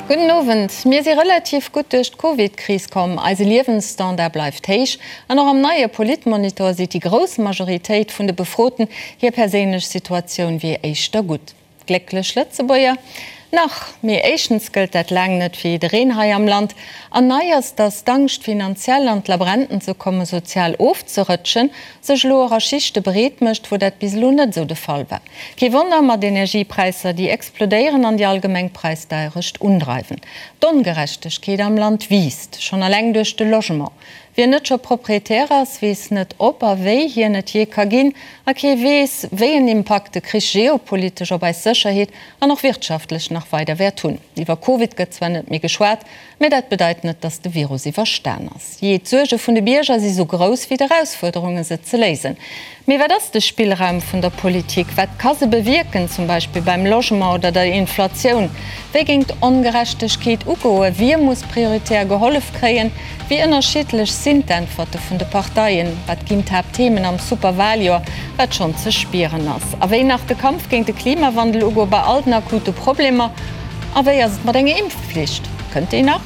Gudden Owend. Mir si relativ gutt duerch d'Covid-Kris komm, eise Liewensstandard bleift héich an och am neie Politmonitor seet déi grouss Majoritéit vun de Befroten, hir perséinlech Situatioun wier éischter gutt. Glécklech Lëtzebuerger? Nach, mee éischtens gëllt dat laang net fir jiddereen hei am Land, an nei ass, datt d'Angscht finanziell an d'Labrenten ze kommen, sozial ofzerëtschen, sech elo och a Schichte breet mécht, wou dat bis elo net esou de Fall war. Kee Wonner mat Energiepräisser, déi explodéieren an déi allgemeng Präisdeierecht undreiwen. D'Ongerechtegkeet am Land wiisst, schonn eleng duerch de Logement. Wien net scho Proprietär ass, weess net ob a wéi hien et jee ka ginn. A kee weess, wéi en Impakt de Krich geopolitesch op eis Sécherheet an och wirtschaftlech nach weider wäert hunn. Iwwer Covid gëtt zwar net méi geschwat, mä dat bedeit net, datt de Virus iwwerstan ass. Jee, d'Suerge vun de Bierger si sou grouss wéi d'Erausfuerderunge se ze léisen. Mee wat ass de Spillraum vun der Politik? Wat ka se bewierken, zum Beispill beim Logement oder der Inflatioun? Wéi géing d'Ongerechtegkeet ugoen? Wie muss prioritär gehollef kréien? Wéi ënnerschiddlech sinn d'Äntwerte vun de Parteien? Wat ginn d'Haaptthemen am Superwaljoer, wat schonn ze spieren ass? A wéi nach de Kampf géint de Klimawandel ugoe bei all den akute Problemer? A wéi ass et mat enger Impfflicht? Kënnt déi nach?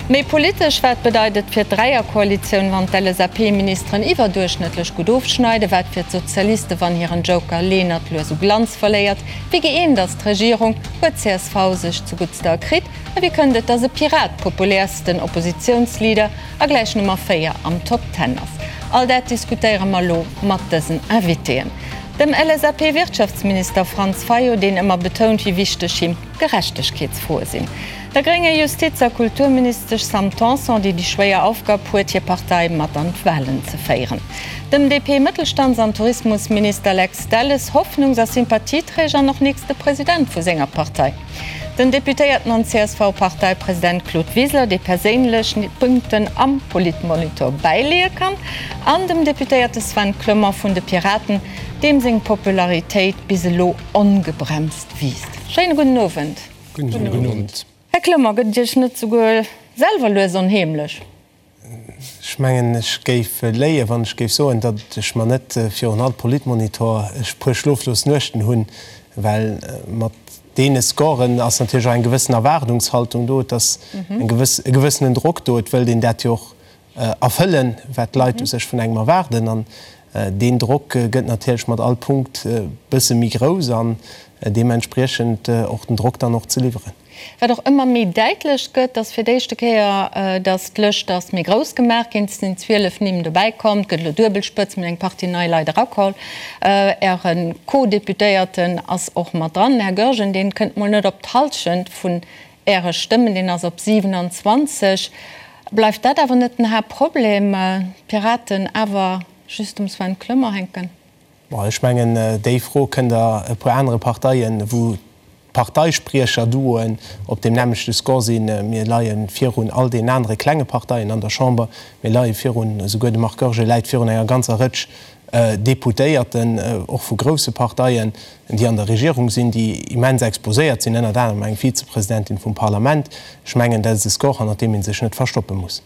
Méi politesch, Wat bedeit et fir d'Dräierkoalitioun, wann d'LSAP-Ministeren iwwerduerchschnëttlech gutt ofschneiden? Wat fir d'Sozialiste, wann hiren Joker Lenert lues u Glanz verléiert? Wéi gëeent ass d'Regierung? Huet csv sech zuguttste erkritt? A wéi kënnt et, datt e Pirat populäersten Oppositiounsleader a gläich Nummer 4 am Top Ten ass? All dat diskutéiere mer elo mat dësen Invitéen. Dem LSAP-Wirtschaftsminister Franz Fayot, deen ëmmer betount, wéi wichteg him Gerechtegkeetsfroe sinn. Der grénger Justiz a Kulturministesch Sam Tanson, déi déi schwéier Aufgab huet, hir Partei mat an d'Wahlen ze féieren. Dem DP-Mëttelstands an Tourismusminister Lex Delles, Hoffnungs a Sympathieträger an och nächste President vu senger Partei. Den Deputéierten an CSV-Parteipresident Claude Wiseler, dee perséinlech Punkten am Politmonitor bäileeë kann. An dem Deputéierte Sven Clement vun de Piraten, deem seng Popularitéit bis elo ongebremst wiisst. Schéine gudden Owend. Gudden Owend. Här Clement, gëtt et Iech net souguer selwer lues onheemlech? Ech mengen, ech géif léien, wann ech géif soen, datt ech mer net virun all Politmonitor e puer schloflos Nuechten hunn, well mat deene Scoren ass natierlech och eng gewëssen Erwaardungshaltung do, et ass eng gewëss, e gewëssenen Drock do, et wëllt een dat jo och erfëllen, wat d'Leit u sech vun engem erwaarden. An deen Drock gëtt natierlech mat all Punkt e bësse méi grouss an deementspriechend och den Drock dann och ze liwweren. Wat och ëmmer méi däitlech gëtt, ass fir d'éischte Kéier, datt d'Lëscht ass méi grouss gemaach ginn. Et sinn 12 Nimm dobäi komm, et gëtt elo duebel Spëtzt, mir hunn eng Partie nei Leit erakoll. Äre Co-Deputéierten ass och mat dran, den Här Goergen, deen kënnt mol net op d'Hallschent vun Äre Stëmmen, deen ass op 27. Bleift dat awer net den Haaptproblem, d'Piraten awer just um Sven Clement hänken? Bon, ech mengen, déi Fro kënnt Der e puer anere Parteien, wou d'Parteispriecher-Duoen op deem nämmlechte Score sinn. Mir leie virun all deenen anere klenge Parteien an der Chamber. Mir leie virun, esouguer de Marc Goergen läit virun enger ganzer Rëtsch Deputéierten, och vu grousse Parteien, déi an der Regierung sinn, déi immens exposéiert sinn, ënnert anerem eng Vizepresidentin vum Parlament. Ech mengen, dat ass e Score, hannert deem ee sech net verstoppe muss.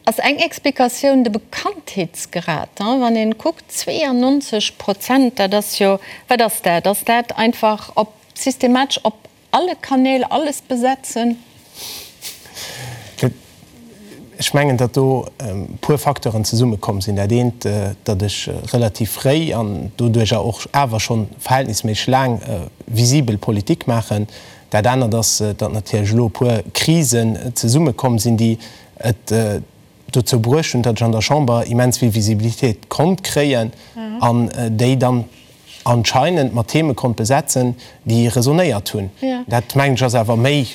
Ass eng Explikatioun de Bekanntheetsgrad? Wann een kuckt, 92 Prozent, dat ass jo, wat ass dat? Ass dat einfach op systematesch op Alle Kanäl alles besetzen? Ech mengen, datt do e puer Facteuren zesummekomm sinn. Dat eent, datt ech relativ fréi an doduercher och awer scho verhältnisméisseg laang visibel Politik maachen. Dat anert ass, datt natierlech elo e puer Krisen zesummekomm sinn, déi et dozou bruecht hunn, datt ech an der Chamber immens vill Visibilitéit konnt kréien an déi dann anscheinend mat Theme konnt besetzen, déi resonéiert hunn. Dat, mengen ech, ass awer méi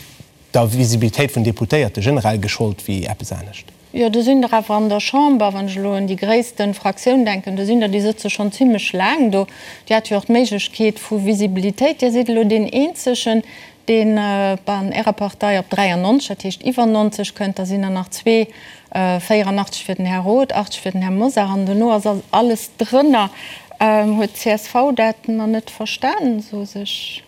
der Visibilitéit vun Deputéierte generell geschollt wéi eppes anescht. Jo, do sinn der awer an der Chamber, wann ech elo un déi gréisste Fraktioun denken, do sinn der, déi sëtze schonn zimlech laang do. Dir hat jo och d'Méiglechkeet vu Visibilitéit. Dir sidd elo deen eenzegen, deen an Ärer Partei op 93, dat heescht iwwer 90 kënnt. Da sinn der nach zwee, 84 fir den Här Roth, 80 fir den Här Mosar an dono ass alles drënner. Huet d'CSV dat nach net verstanen, esou sech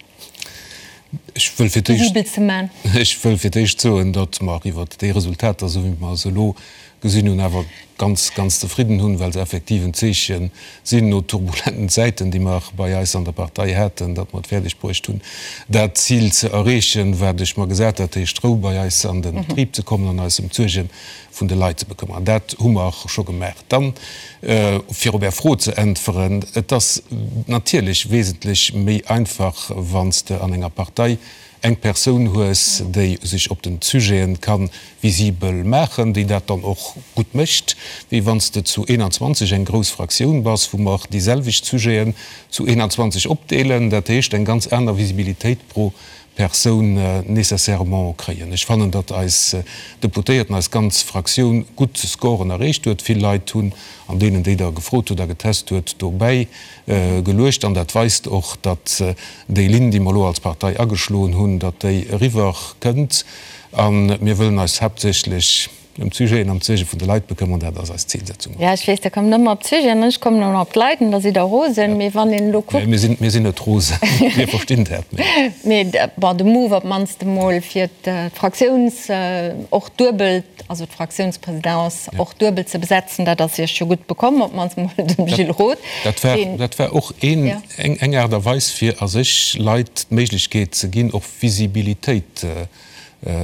visibel ze man? Ech wëll fir d'éischt soen, datt mer iwwert déi Resultater, esou wéi mer se elo. Gesinn hunn, awer ganz, ganz zefridden hunn, well se effektiv en Zeeche sinn no turbulenten Zäiten, déi mer bei eis an der Partei haten, datt mer et fäerdeg bruecht hunn, dat Zil ze erreechen, wat ech mer gesat hat, dat heescht Rou bei eis an de Betrib ze kommen an eis ëm d'Suerge vun de Leit ze bekëmmeren. An dat hu mer scho gemaach. Dann, fir op Är Fro ze äntweren, Et ass natierlech wesentlech méi einfach, wann s de an enger Partei eng Persoun hues, déi sech op den Sujeten ka visibel maachen, déi dat dann och gutt mécht, wéi wann s de zu 21 eng grouss Fraktioun bass, wou mer déi selwecht Sujeten zu 21 opdeelen, dat heescht eng ganz aner Visibilitéit pro Persoun nécessairement kréien. Ech fannen, datt eis Deputéierten, eis ganz Fraktioun gutt Scoren erreecht huet. Vill Leit hunn an deenen, déi Der gefrot hutt a getest huet, dobäi geluecht an dat weist och, datt déi Linn, déi mer elo als Partei ageschloen hunn, datt déi eriwwer kënnt. A mir wëllen eis haaptsächlech ëm d'Sujeten an d'Suerge vun de Leit bekëmmern. Dat ass eis Zilsetzung. Jo, ech weess, Der kommt ëmmer op d'Sujeten an ech kommen ëmmer op d'Leit an da sidd Der rosen. Mee wann een elo kuckt. Mir sinn, mir sinn net rosen, mir verstinn dat. Mee bon, de Move op d'mannst emol fir d'Fraktiouns och duebel, also d'Fraktiounspresidence och duebel ze besetzen, dat ass Iech jo gutt bekomm, op d'mannst emol dem Gilles Roth. Dat war, dat war och een, eng, eng Aart a Weis, fir a sech Leit d'Méiglechkeet ze ginn, och Visibilitéit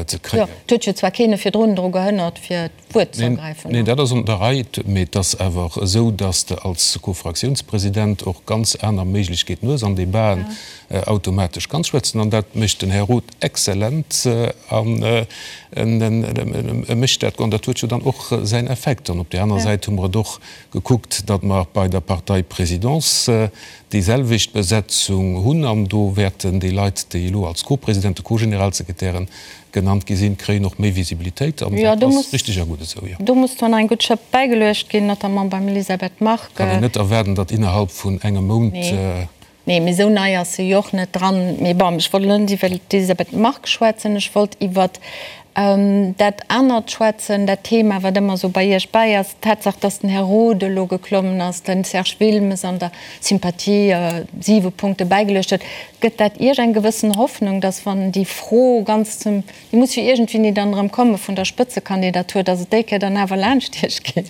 ze kréien. Jo, et huet jo zwar keen e virdrun dru gehënnert, fir d'Wuert ze ergräifen. Neen, dat ass an der Rei, mee et ass awer esou, dass de als Co-Fraktiounspresident och ganz aner Méiglechkeeten hues, an Debaten automatesch kanns schwätzen. An dat mécht den Här Roth exzellent an e mécht dat, an dat huet jo dann och säin Effekt. An op där aner Säit hu mer et och gekuckt, datt mer bei der Parteiprésidence déi selwecht Besetzung hunn an do wäerten déi Leit, déi elo als Co-Presidenten, Co-Generalsekretären genannt gi sinn, kréien och méi Visibilitéit an dat ass richteg a gutt esou, jo. Do muss zwar nach eng gutt Schëpp bäigeluecht ginn, notamment beim Elisabeth Margue. Kann een net erwaarden, datt innerhalb vun engem Mount. Nee, mee esou nei ass se jo och net dran. Mee bon, ech wollt elo net iwwer d'Elisabeth Margue schwätzen, ech wollt iwwer dat anert schwätzen, dat Thema, wat ëmmer esou bei Iech bäi ass, d'Tatsaach, dass den Här Roth elo geklommen ass, den Serge Wilmes an der Sympathie siwe Punkte bäigeluecht huet. Gëtt dat Iech eng gewëssen Hoffnung, dass, wann déi Fro ganz zum, déi muss jo iergendwéini dann erëm komme vun der Spëtzekandidatur, dass et déi Kéier dann awer laanscht Iech geet?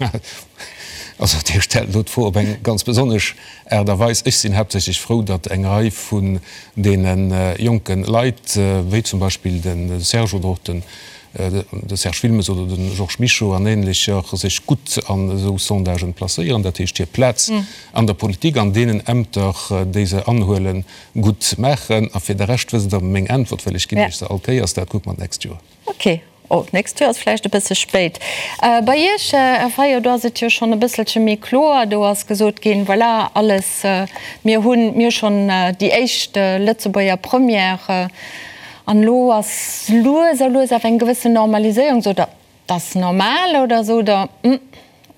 Also Dir stellt elo d'Fro op eng ganz besonnesch Aart a Weis. Ech sinn haaptsächlech frou, datt eng Rei vun deene jonke Leit, wéi zum Beispill de Serge oder och den de Serge Wilmes oder de Georges Mischo an Ähnlecher, sech gutt an esou Sondagen placéieren, dat heescht hir Plaz an der Politik, an deenen Ämter, déi se anhuelen, gutt maachen. A fir de Rescht wësst Der meng Äntwert, well ech ginn Iech se all Kéiers, dat kucke mer d'nächst Joer. Ok. Oh, d'nächst Joer ass vläicht e bësse spéit. Bei Iech, Här Fayot, do ass et jo schonn e bësselche méi kloer. Do ass gesot ginn, voilà, alles, mir hunn, mir hu schonn déi éischt Lëtzebuerger Première an elo ass lues a lues awer eng gewëssen Normaliséierung. Sot Der, dat ass normal oder sot Der, hm,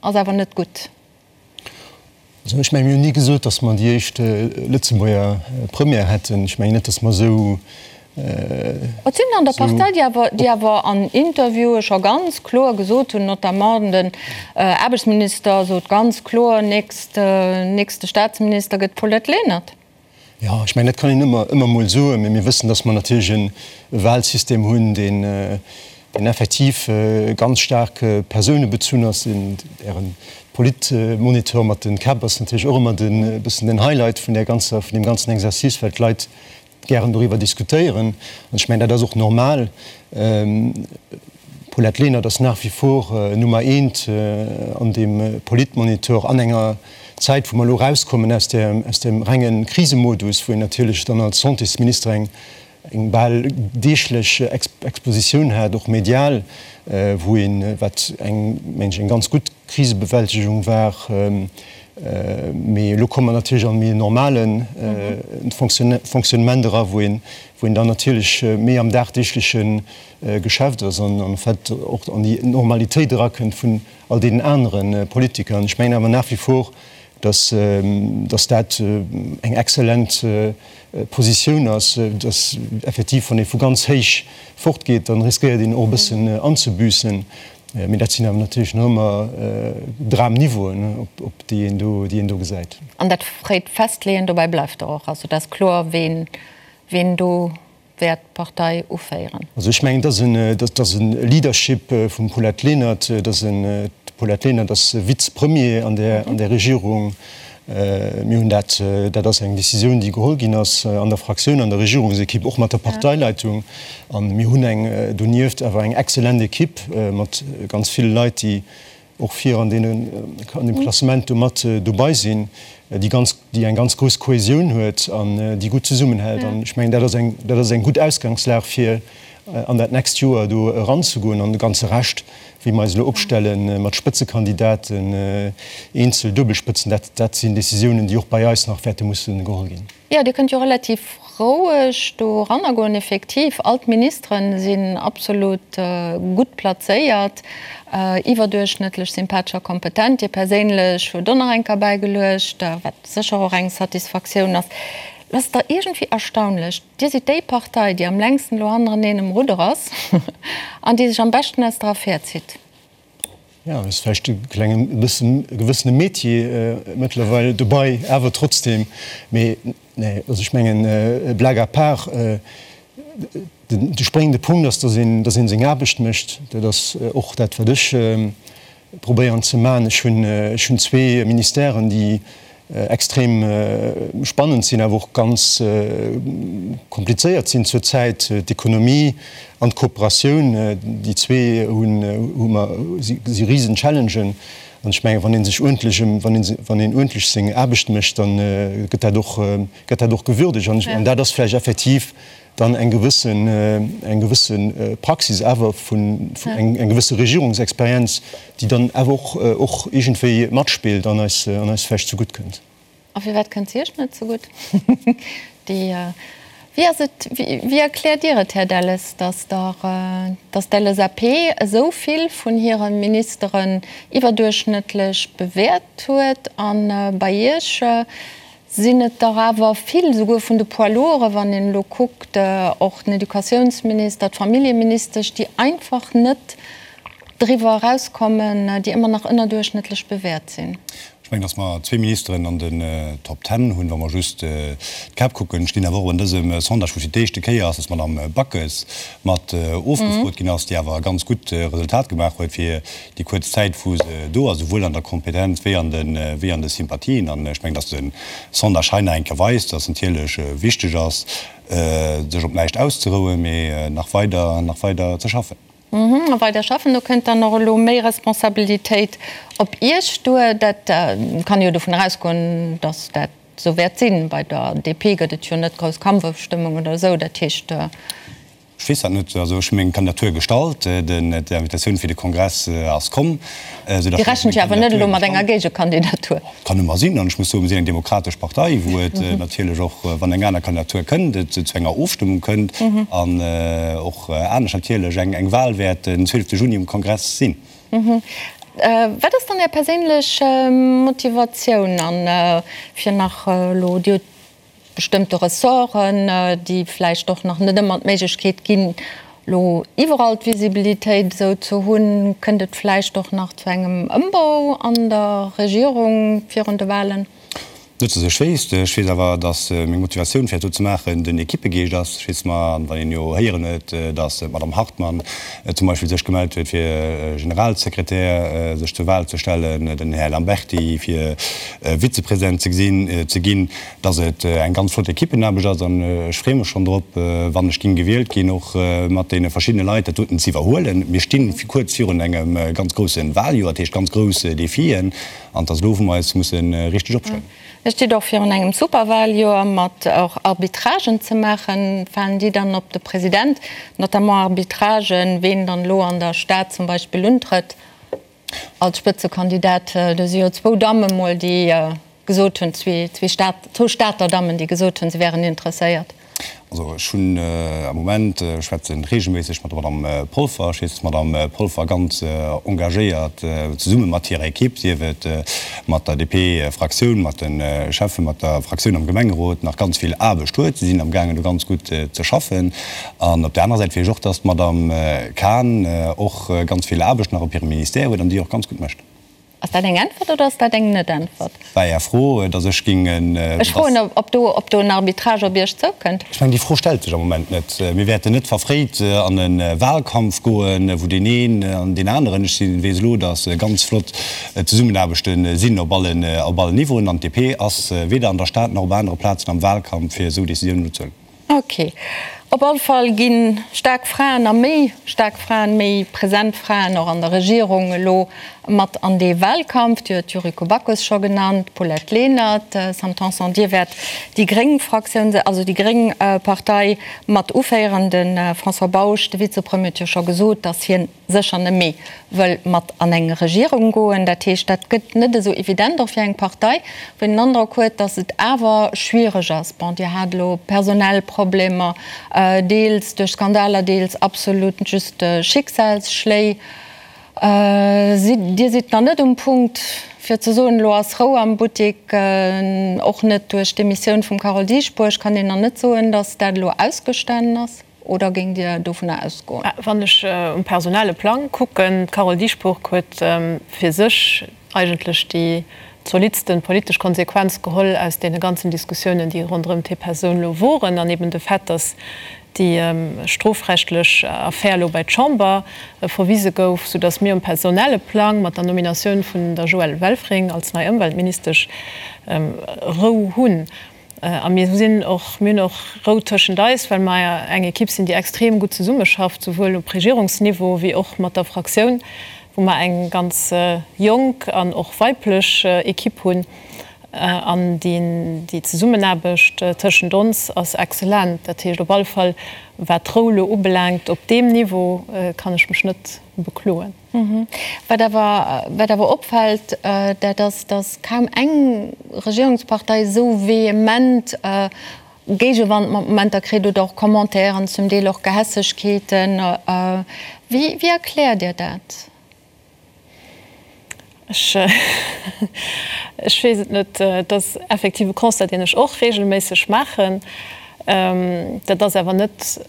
ass awer net gutt? Also ech mengen, mir hunn ni gesot, datt mer déi éischt Lëtzebuerger Première hätten. Ech mengen net, datt mer esou. Et sinn an der Partei, déi awer, déi awer an Interviewe scho ganz kloer gesot hunn, notamment den Aarbechtsminister sot ganz kloer, nächst, nächste Staatsminister gëtt d'Paulette Lenert. Jo, ech mengen, dat kann een ëmmer, ëmmer emol soen, mä mir wëssen, datt mer natierlech e Wahlsystem hunn, deen, deen effektiv ganz staark persounebezunn ass. Äre Politmonitor mat de Käpp ass natierlech och ëmmer den, e bëssen den Highlight vun där ganzer, vun deem ganzen Exercice, well d'Leit gären doriwwer diskutéieren. An ech mengen, dat ass och normal. D'Paulette Lenert ass nach wie vor Nummer eent an deem Politmonitor an enger Zäit, wou mer elo erauskommen aus der, aus dem renge Krisemodus, wou een natierlech dann als Santésminister eng, eng bal deeglech Expositioun hat, och medial, wou een, wat eng, mengen ech, eng ganz gutt Krisebewältegung war. Mee elo komme mer natierlech an e méi normale Fonctionnement era, wou een, wou een dann natierlech méi am dagdeegleche Geschäft ass an en fait och an déi Normalitéit erakënnt vun all deenen anere Politiker. An ech mengen awer nach wie vor, dass, dass dat eng exzellent Positioun ass, dass effektiv, wann ee vu ganz héich fortgeet, dann riskéiert een och e bëssen anzebüssen. Mee dat sinn awer natierlech nach ëmmer Dramniveauen, op déi een do, déi een do gesäit. An dat fréit Festleeën, dobäi bleift Der och. Also et ass kloer, ween, ween do wäert d'Partei uféieren. Also ech mengen, et ass en, et ass e Leadership vum Paulette Lenert, et ass en. D'Paulette Lenert ass Vize-Premier an där an där Regierung. Mir hunn dat, dat ass eng Décisioun, déi geholl ginn ass an der Fraktioun, an der Regierungsekipp, och mat der Parteileitung. A mir hunn eng donieft awer eng exzellent Ekipp mat ganz ville Leit, déi och vir an deenen, an deem Klassement do mat dobei sinn, déi ganz, déi eng ganz grouss Kohäsioun huet an déi gutt zesummenhält. An ech mengen, dat ass eng, dat ass eng gutt Ausgangslag fir an dat nächst Joer do eranzegoen. An de ganze Rescht, wéi mer eis elo opstelle mat Spëtzekandidaten, eenzel, Duebelspëtzen, dat, dat sinn Décisiounen, déi och bei eis nach wäerte musse geholl ginn. Jo, Dir kënnt jo relativ roueg do eranner goen. Effektiv, all d'Ministere sinn absolut gutt plazéiert, iwwerduerchschnëttlech sympathesch a kompetent. Dir perséinlech hutt och nach eng Kéier bäigeluecht, wat sécher och eng Satisfaktioun ass. Et ass da iergendwéi erstaunlech, Dir sidd déi Partei, déi am längsten elo hannereneen um Rudder ass an déi sech am beschten aus der Affär zitt. Jo, ass vläicht e klengen, e bëssen, e gewëssene Métier mëttlerweil dobei, awer trotzdem. Mee nee, also ech mengen, blague à part, den, de spréngende Punkt ass, dass een, dass een seng Aarbecht mécht. Dat ass och dat, wat ech probéieren ze maachen. Ech hunn, ech hunn zwee Ministèren, déi extrem spannend sinn, awer och ganz komplizéiert sinn zur Zäit, d'Ekonomie an d'Kooperatioun. Déi zwee hunn, hu mer, si risen Challengen. An ech mengen, wann ee sech uerdentlech ëm, wann ee, wann een uerdentlech seng Aarbecht mécht, da gëtt dat och, gëtt dat och gewürdegt. An dat ass vläicht effektiv dann eng gewëssen, eng gewësse Praxis awer vun, eng gewësse Regierungsexperienz, déi dann awer och, och iergendwéi matspillt an eis, an eis vläicht zegutt kënnt. A firwat kënnt se Iech net zegutt? Déi, wéi ass et, wéi erkläert Dir et, Här Delles, datt der, datt d'LSAP esou vill vun hire Ministeren iwwerduerchschnëttlech bewäert huet a bei Iech Sinn et der awer vill, souguer vun de Poids lourds, wann een elo kuckt, och den Educatiounsminister, d'Familljeministesch, déi einfach net driwwer erauskommen, déi ëmmer nach ënnerduerchschnëttlech bewäert sinn. Ech mengen, datt mer zwee Ministeren an den Top Ten hunn, wa mer just d'Käpp kucken. Ech ginn awer och an dësem Sondage, wou fir d'éischte Kéier ass, datt d'Madame Backes mat ofgefrot ginn ass, déi awer e ganz gutt Resultat gemaach huet fir déi kuerz Zäit, wou se do ass, esouwuel an der Kompetenz wéi an de, wéi an de Sympathien. An ech mengen, dass de Sondage hei nach eng Kéier weist, dass natierlech wichteg ass, sech op näischt auszerouen, mee nach weider, nach weider ze schaffen. A weider schaffen, do kënnt dann och elo méi Responsabilitéit op Iech duer. Dat kann ee jo dovun erausgoen, dass dat esou wäert sinn. Bei der DP gëtt et jo net grouss Kampfofstëmmung oder esou. Dat heescht. Ech weess dat net. Also ech hu meng Kandidatur gestallt, d'Invitatioun fir de Kongress ass komm, esou datt Dir rechent jo awer net elo mat enger Géigekandidatur? Kann ëmmer sinn. An ech muss soen, mir sinn eng demokratesch Partei, wou et natierlech och, wann eng aner Kandidatur kënnt, et zu enger Ofstëmmung kënnt an och anescht natierlech eng Wahl wäert den 12 Juni um Kongress sinn. Wat ass dann Är perséinlech Motivatioun an fir nach elo, Dir hutt bestëmmte Ressorten, déi vläicht och nach net ëmmer d'Méiglechkeet ginn, elo iwwerall d'Visibilitéit esou ze hunn, kënnt et vläicht och nach zu engem Ëmbau an der Regierung virun de Wahlen? Net datt ech wéisst. Ech weess awer, datt meng Motivatioun fir dat do ze maachen den Ekippegeescht ass. Ech weess mer, an wann een jo héieren huet, datt d'Madame Hartmann zum Beispill sech gemellt huet fir Generalsekretär sech zur Wahl ze stellen, den Här Lamberty fir Vizepresident ze gesinn, ze ginn, dass et eng ganz flott Ekippenaarbecht ass an ech freeë mech schonn drop, wann ech ging gewielt ginn, och mat deene verschiddene Leit dat doten ze iwwerhuelen. Mir sti kuerz virun engem ganz grousse Wahljoer, dat heescht ganz grouss Defien an et ass elo, wou mer eis musse richteg opstellen. Dir stitt och virun engem Superwahljoer mat och Arbitragen ze maachen. Falen déi dann op de President, notamment Arbitragen, ween dann elo an der Stad zum Beispill untrëtt? Als Spëtzekandidat, do si jo zwou Damme mol, déi gesot hunn, zwee zwou Stater Dammen, déi gesot hunn, se wären interesséiert. Also ech hunn am Moment, ech schwätze reegelméisseg mat der Madame Polfer, ech weess, dass d'Madame Polfer ganz engagéiert zesumme mat hirer Ekipp, sief et mat der DP-Fraktioun, mat de Schäffen, mat der Fraktioun am Gemengerot, nach ganz vill Aarbecht huet. Si sinn amgaangen do ganz gutt ze schaffen. An op där anerer Säit weess ech och, dass d'Madame Cahen och ganz vill Aarbecht nach op hirem Ministère huet an déi och ganz gutt mécht. Ass dat eng Äntwert oder ass dat eng Net-Äntwert? War Är Fro, datt ech géing en. Ech froen, ob do, ob do en Arbitrage op Iech zoukënnt. Ech mengen, déi Fro stellt sech am Moment net. Mir wäerten net verfréit an e Wahlkampf goen, wou deen een an deen aneren, ech sinn, weess elo, datt ganz flott Zesummenaarbechte sinn op allen, op allen Niveauen, an d'DP ass weder an der Stad nach op anere Plazen am Wahlkampf, fir esou Décisiounen elo ze huelen. Ok. Op all Fall gi staark Fraen a méi staark Fraen, méi present Fraen och an der Regierung elo mat an dee Wahlkampf. Dir huet d'Yuriko Backes scho genannt, d'Paulette Lenert, Sam Tanson, Dir wäert déi gréng Fraktioun, also déi gréng Partei mat uféieren. De François Bausch, de Vizepremier, huet jo scho gesot, datt hien sécher net méi wëll mat an eng Regierung goen. Dat heescht, dat gëtt net esou evident och fir eng Partei, wou een den Androck huet, datt et awer schwiereg ass. Bon, Dir hat elo personell Problemer, deels duerch Skandaler, deels absolut just Schicksalsschléi. Dir sidd nach net um Punkt, fir ze soen, elo ass Rou am Buttek. Och net duerch d'Demissioun vum Carole Dieschbourg kann een nach net soen, datt dat elo ausgestanen ass. Oder géingt Dir dovunner ausgoen? Wann ech um personelle Plang kucken, d'Carole Dieschbourg huet fir sech eigentlech déi zolidsten politesch Konsequenz geholl aus deene ganzen Diskussiounen, déi ronderëm hir Persoun elo woren, an eben de Fait, datt déi strofrechtlech Affär elo bei d'Chamber verwise gouf, soudatt mir um personelle Plang mat der Nominatioun vun der Joëlle Welfring als nei Ëmweltministesch Rou hunn. A mir sinn och, mir hunn och Rou tëschent eis, well mer eng Ekipp sinn, déi extrem gutt zesummeschafft, souwuel op Regierungsniveau wéi och mat der Fraktioun, wou mer eng ganz jonk an och weiblech Ekipp hunn. An déi Zesummenaarbecht tëschent ons ass exzellent. Dat heescht op alle Fall, wat d'Rou elo ubelaangt, op deem Niveau kann ech mech net bekloen. Wat awer, wat awer opfält, dat ass, datt kaum eng Regierungspartei esou vehement Géigewand mat Momenter kritt oder och Commentairen, zum Deel och Gehässegkeeten. Wéi, wéi erkläert Dir dat? Ech, ech weess et net. Et ass effektiv e Constat, deen ech och reegelméisseg maachen. Dat ass awer net,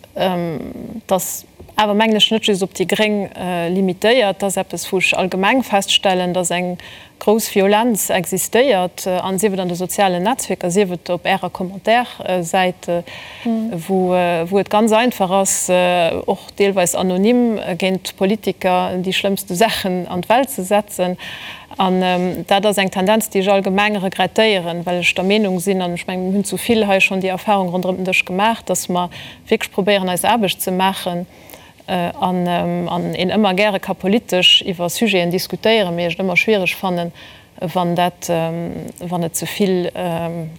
dass awer mengen ech, net just op déi Gréng limitéiert. Dat ass eppes, wou ech allgemeng feststellen, dass eng grouss Violenz existéiert, an sief et an de sozialen Netzwierker, sief et op Ärer Commentaire-Säit, wou et ganz einfach ass, och deelweis anonym géint Politiker déi schlëmmste Saachen an d'Welt ze setzen. An dat ass eng Tendenz, déi ech allgemeng regrettéieren, well ech der Meenung sinn, an ech mengen, mir hunn zu vill hei schonn déi Erfahrung ronderëm den Dësch gemaach, dass mer wierklech probéieren, eis Aarbecht ze maachen an een ëmmer gäre ka politesch iwwer Sujeten diskutéieren, mee ech et ëmmer schwiereg fannen, wann dat, wann et ze vill,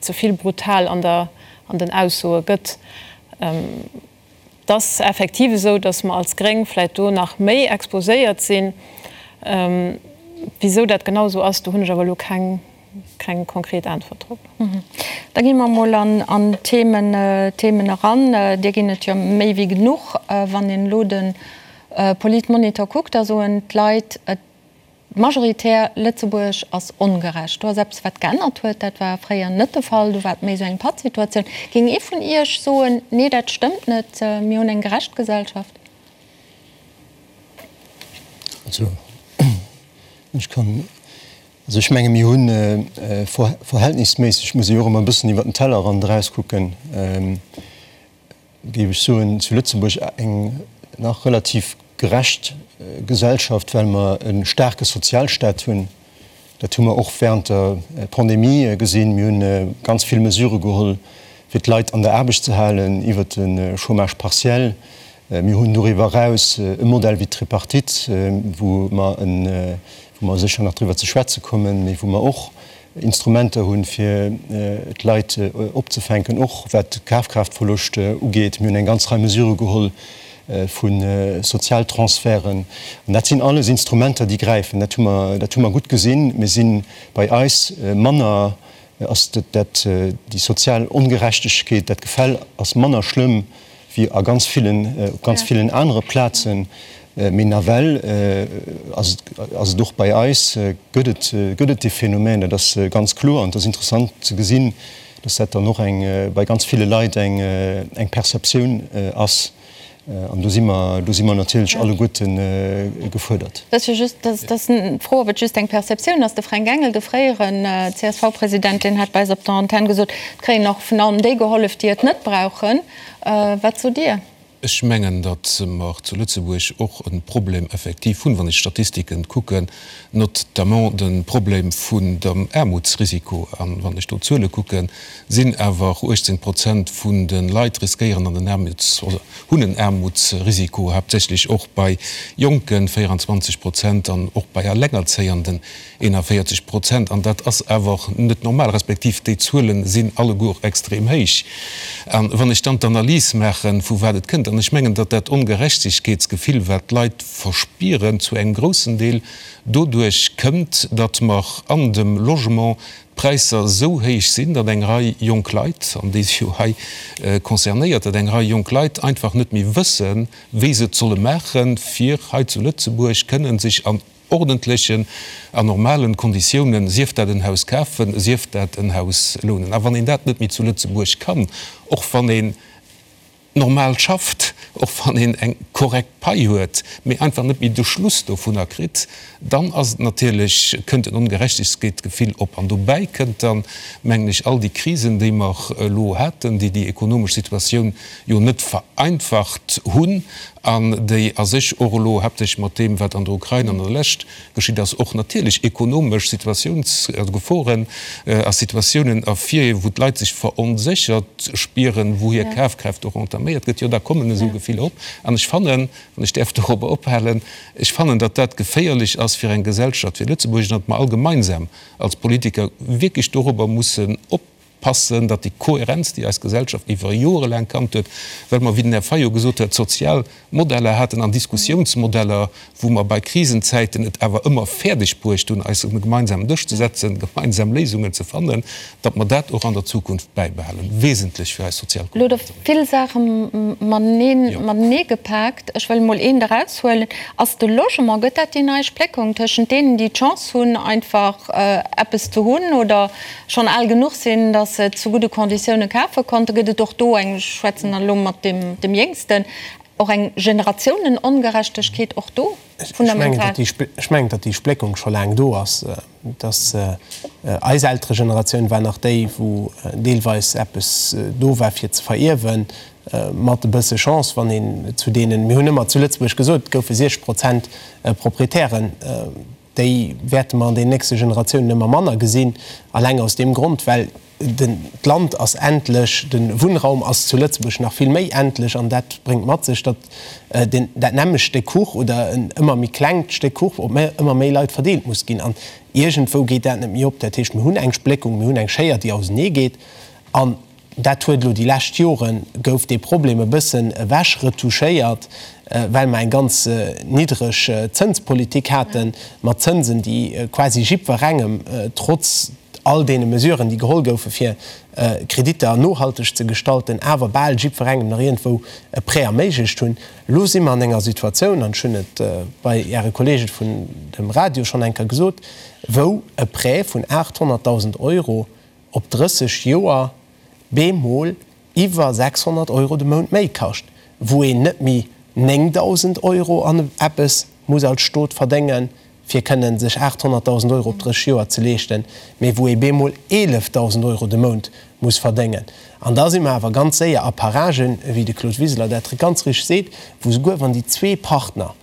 ze vill brutal an der, an den Aussoe gëtt. Et ass effektiv esou, datt mer als Gréng vläicht do nach méi exposéiert sinn. Wisou dat genau esou ass, do hunn ech awer elo keng, keng konkret Äntwert drop. Da gi mer emol an d'Themen eran. Där ginn et jo méi wéi genuch. Wann een elo de Politmonitor kuckt, da soen d'Leit, et majoritär, Lëtzebuerg ass ongerecht. Do ass eppes, wat geännert huet. Dat war fréier net de Fall. Do war et méi esou eng Pattsituatioun. Géing ee vun Iech soen, nee, dat stëmmt net, mir hunn eng gerecht Gesellschaft? Also, ech kann Also ech menge mir hunn verhältnisméisseg, muss ee jo och ëmmer e bëssen iwwer den Tellerrand erauskucken, géif ech soen, zu Lëtzebuerg eng nach relativ gerecht Gesellschaft, well mer e staarke Sozialstaat hunn. Dat hu mer och während der Pandemie gesinn. Mir hunn ganz vill Mesurë geholl, fir d'Leit an der Aarbecht ze halen, iwwert de Chômage partiel. Mir hunn doriwwer eraus e Modell wéi d'Tripartite, wou mer e wou mer sécher nach driwwer ze schwätze kommen, mee wou mer och Instrumenter hunn, fir d'Leit opzefänken, och wat de Kafkraaftverloscht ugeet. Mir hunn eng ganz Rei Mesurë geholl vu Sozialtransferten. An dat sinn alles Instrumenter, déi gräifen. Dat hu mer, dat hu mer gutt gesinn. Mir si bei eis manner, ass dat, déi sozial Ongerechtegkeet, dat Gefäll ass manner schlëmm wéi a ganz villen, op ganz villen anere Plazen, mee nawell ass et, ass et och bei eis, gëtt et, gëtt et dee Phänomen, dat ass ganz kloer. An et ass interessant ze gesinn, dass dat dann och eng, bei ganz ville Leit eng, eng Perceptioun ass. An do si mer, do si mer natierlech alleguerte gefuerdert. Dat ass jo just, dat ass d'Fro, ob et just eng Perceptioun ass. De Fränk Engel, de fréieren CSV-President, deen hat bei eis op der Antenn gesot, et kréien och vun allem déi gehollef, déi et net brauchen. Wat sot Dir? Ech mengen, datt mer zu Lëtzebuerg och e Problem effektiv hunn, wann ech d'Statistiken kucken, notamment de Problem vun dem Aarmutsrisiko. A wann ech do d'Zuele kucken, sinn awer 18 Prozent vun de Leit riskéieren an den Aarmuts-, oder hunn en Aarmutsrisiko, haaptsächlech och bei Jonken, 24 Prozent, an och bei Allengerzéienden, 41 Prozent, an dat ass awer net normal, respektiv déi Zuele sinn alleguer extrem héich. A wann ech dann d'Analys maachen, vu wat et kënnt, an ech mengen, datt dat Ongerechtegkeetsgefill, wat d'Leit verspieren, zu engem groussen Deel doduerch kënnt, datt mer an dem Logement d'Präisser esou héich sinn, datt eng Rei jonk Leit, an déi si jo hei concernéiert, datt eng Rei jonk Leit einfach net méi wëssen, wéi se et solle maachen, fir hei zu Lëtzebuerg kënnen sech an ordentlechen a normalen Konditiounen, sief dat en Haus kafen, sief dat en Haus lounen. A wann een dat net méi zu Lëtzebuerg kann, och wann een normal schafft, och wann een eng korrekt Pai huet, mee einfach net méi de Schluss dovunner kritt, dann ass et natierlech, kënnt en Ongerechtegkeetsgefill op. An dobäi kënnt dann, mengen ech, all déi Krisen, déi mer elo haten, déi déi ekonomesch Situatioun jo net vereinfacht hunn an déi a sech och elo haaptsächlech mat deem, wat an der Ukrain an der Lescht geschitt ass, och natierlech ekonomesch Situatiouns-, also Geforen a Situatiounen ervirhiewen, wou d'Leit sech veronséchert spieren, wou hir Kafkraaft och entaméiert gëtt, jo da kommen esou Gefiller op. An ech fannen, wann ech däerf dorobber ophalen, ech fannen, datt dat geféierlech ass fir eng Gesellschaft wéi Lëtzebuerg an datt mer all gemeinsam als Politiker wierklech dorobber mussen op. Passen, datt déi Kohärenz, déi eis Gesellschaft iwwer Jore laang kannt huet, well mer, wéi den Här Fayot gesot huet, sozial Modeller haten an Diskussiounsmodeller, wou mer bei Krisenzäiten et awer ëmmer fäerdeg bruecht hunn, eis un e gemeinsamen Dësch ze setzen, gemeinsam Léisungen ze fannen, datt mer dat och an der Zukunft bäibehalen, wesentlech fir eis sozial Elo hutt Der vill Saache matenee gepaakt. Ech wëll emol eent eraushuelen. Ass de Logement, gëtt dat déi nei Spléckung tëschent deenen, déi d'Chance hunn, einfach eppes ze hunn oder schonn al genuch sinn, datt se et zu gudde Konditioune kafe konnten, gëtt et och do eng, ech schwätzen dann elo mat deem dem Jéngsten, och eng Generatiounen-Ongerechtegkeet och do fundamental? Ech mengen, datt déi Spléckung scho laang do ass. Datt eis Elteregeneratioun war nach déi, wou deelweis eppes do war fir ze verierwen, mat e bësse Chance, wann een zu deenen, mir hunn ëmmer zu Lëtzebuerg gesot, et goufe 60 Prozent Proprietären, Déi wäerte mer an den nächste Generatiounen ëmmer manner gesinn, alleng aus deem Grond, well den, d'Land ass endlech, de Wunnraum ass zu Lëtzebuerg nach vill méi endlech an dat bréngt mat sech, datt den, dat nämmlecht Stéck Kuch oder en ëmmer méi klengt Stéck Kuch op méi, ëmmer méi Leit verdeelt muss ginn. An iergendwou geet dat net méi op. Dat heescht, mir hunn eng Spléckung, mir hunn eng Schéier, déi ausenee geet. An Dat huet elo déi lescht Jore gouf dee Problem e bëssen ewech retouchéiert, well mer eng ganz niddreg Zënspolitik hate mat Zënsen, déi quasi jiddwerengem, trotz all deene Mesuren, déi geholl goufe fir Kreditter nohalteg ze gestalten, awer bal jiddwerengem nach iergendwou e Prêt erméiglecht hunn. Elo si mer an enger Situatioun, an ech hunn et bei Äre Kollege vun dem Radio schonn eng Kéier gesot, wou e Prêt vun 800.000 Euro op 30 Joer bemol iwwer 600 Euro de Mount méi kascht, wou een net méi 9.000 Euro an eppes muss als Stot verdéngen, fir kënnen sech 800.000 Euro op 30 Joer ze leeschten, mee wou ee bemol 11.000 Euro de Mount muss verdéngen. An da si mer awer ganz séier a Paragen, wéi de Claude Wiseler dat ganz richteg seet, wou souguer wann déi zwee Partner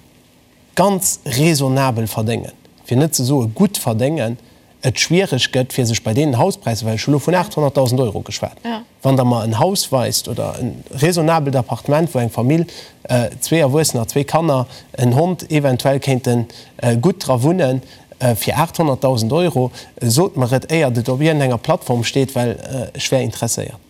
ganz raisonnabel verdéngen, fir net ze soe gutt verdéngen, et schwiereg gëtt, fir sech bei deenen Hauspräisser, well ech hu lo vun 800.000 Euro geschwat, wann Der mer en Haus weist oder e raisonnabelt Appartement, wou eng Famill, zwee Erwuessener, zwee Kanner, en Hond eventuell kéinte gutt dra wunnen, fir 800.000 Euro, sot mer et, éiert et op iergendenger Plattform steet, well ech wär interesséiert.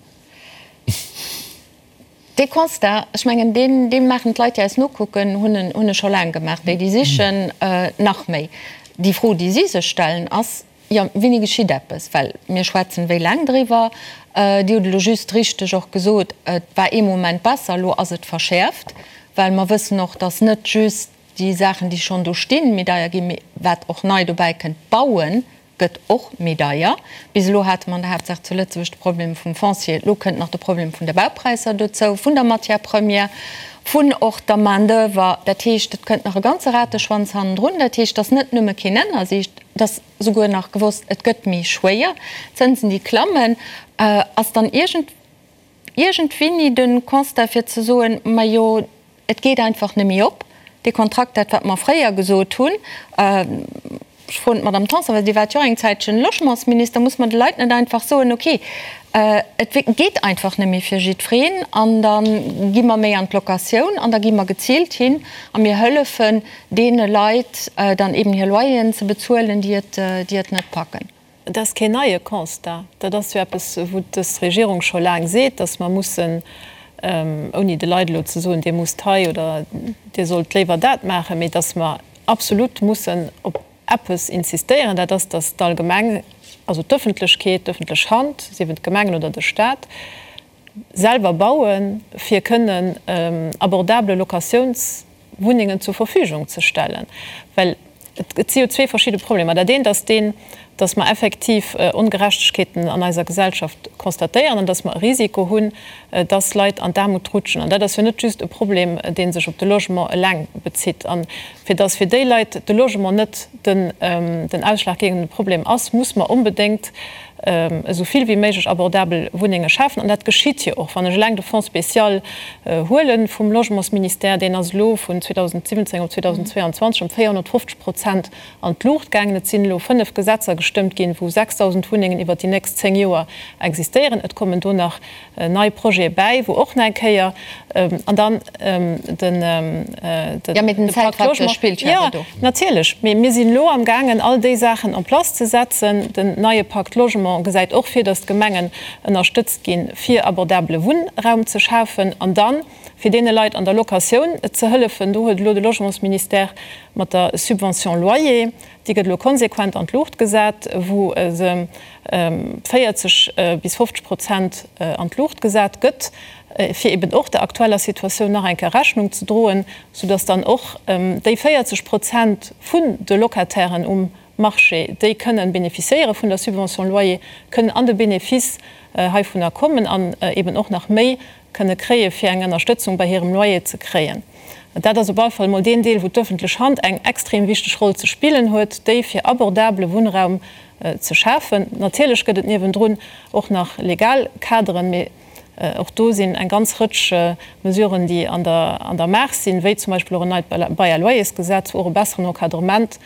Dee Constat, ech mengen, deen, dee maachen d'Leit, déi eis nokucken, hunn en, hunn e scho laang gemaach, déi, déi sichen, nach méi. Déi Fro, déi si sech stellen, ass, Jo, wéini geschitt eppes? Well mir schwätzen wéi laang driwwer. Dir hutt elo just richteg och gesot, et war ee Moment besser, elo ass et verschäerft, well mer wëssen och, dass net just déi Saachen, déi schonn do stinn, méi deier ginn, mee wat och nei dobäi kënnt, d'Bauen gëtt och méi deier. Bis elo hate mer an der Haaptsaach zu Lëtzebuerg de Problem vum Foncier. Elo kënnt nach de Problem vun de Baupräisser dozou, vun der Matière première. Vun och der Main d'oeuvre. Dat heescht, et kënnt nach e ganze Rateschwanz hannendrun. Dat heescht, et ass net nëmme keen Ennersicht, et ass souguer nach gewosst, et gëtt méi schwéier, d'Zënsen déi klammen. Ass dann iergend, iergendwéini de Constat fir ze soen, majo, et geet einfach net méi op, dee Kontrakt, dat wat mer fréier gesot hunn, Ech froen d'Madame Tanson, well Dir waart jo och eng Zäitchen Logementsminister, Muss mer de Leit net einfach soen, okay, et geet einfach net méi fir jiddwereen an da gi mer méi an d'Locatioun an da gi mer geziilt hin a mir hëllefen deene Leit dann eben hir Loyeren ze bezuelen, déi et, déi et net packen? Et ass keen neie Constat. Dat ass jo eppes, wou dës Regierung scho laang seet, datt mer mussen, ouni de Leit elo ze soen, Dir musst hei oder Dir sollt léiwer dat maachen, mee datt mer absolut mussen op eppes insistéieren, dat ass, datt d'allgemeng, also d'Öffentlechkeet, d'öffentlech Hand, sief et d'Gemengen oder de Stat, selwer bauen, fir kënnen abordable Locatiounswunnengen zur Verfügung ze stellen. Well et si jo zwee verschidde Problemer. Dat eent ass deen, datt mer effektiv Ongerechtegkeeten an eiser Gesellschaft constatéieren an datt mer e Risiko hunn, datt Leit an d'Aarmut rutschen. An dat ass jo net just e Problem, dee sech op de Logement eleng bezitt. A fir datt fir déi Leit de Logement net den ausschlaggebende Problem ass, muss mer onbedéngt esou vill wéi méiglech abordabel Wunnenge schafen. An dat geschitt jo och. Wann ech eleng de Fonds spécial huele vum Logementsministère, deen ass elo vun 2017 op 2022 ëm 450 Prozent an d'Luucht gaangen. Et sinn elo 5 Gesetzer gestëmmt ginn, wou 6.000 Wunnengen iwwert déi nächst 10 Joer existéieren. Et kommen do nach nei Projete bäi, wou och nach eng Kéier an dann den de Pacte Logement. Jo, natierlech. Mee mir sinn elo amgaangen, all déi Saachen en place ze setzen. Den neie Pacte Logement gesäit och vir, datt d'Gemengen ënnerstëtzt ginn, fir abordabele Wunnraum ze schafen. An dann, fir deene Leit an der Locatioun ze hëllefen, do huet elo de Logementsministère mat der Subvention loyer, déi gëtt elo konsequent an d'Luucht gesat, wou se 40 bis 50 Prozent an d'Luucht gesat gëtt, fir eben och der aktueller Situatioun nach eng Kéier Rechnung ze droen, soudass dann och déi 40 Prozent vun de Locatairen um Marché, déi kënnen bénéficiéiere vun der Subvention loyer, kënnen an de Bénéfice heivunner kommen an eben och nach méi kënne kréie fir eng Ënnerstëtzung bei hirem Loyer ze kréien. Dat ass op alle Fall emol deen Deel, wou d'öffentlech Hand eng extrem wichteg Roll ze spillen huet, déi fir abordabele Wunnraum ze schafen. Natierlech gëtt et niewendrun och nach legal Kaderen, mee och do sinn eng ganz Rëtsch Mesuren, déi an der Maach sinn, wéi zum Beispill och en neit Bail à loyers-Gesetz, wou och e besseren Encadrement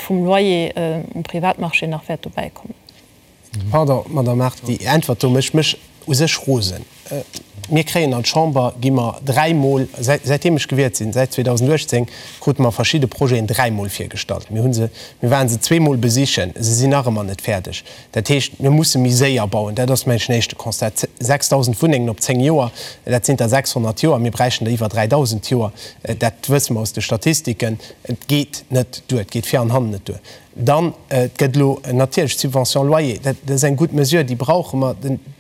vum Loyer um Privatmarché nach wäert dobäi kommen. Pardon, Madame Mart, déi Äntwert do mécht mech u sech rosen. Mir kréien an d'Chamber, gi mer dräimol, säitdeem ech gewielt sinn, säit 2018, krute mer verschidde Projeten dräimol virgestallt. Mir hu se, mir ware se zweemol besichen, se sinn nach ëmmer net fäerdeg. Dat heescht, mir musse méi séier bauen. Dat ass, mengen ech, den éischte Constat. 6.000 Wunnengen op zéng Joer, dat sinn der 600 d'Joer. Mir bräichten der iwwer 3.000 d'Joer. Dat wësse mer aus de Statistiken. Et geet net duer, et geet vir an hannen net duer. Dann, et gëtt elo natierlech d'Subvention loyer, dat ass eng gutt Mesure, déi brauche mer.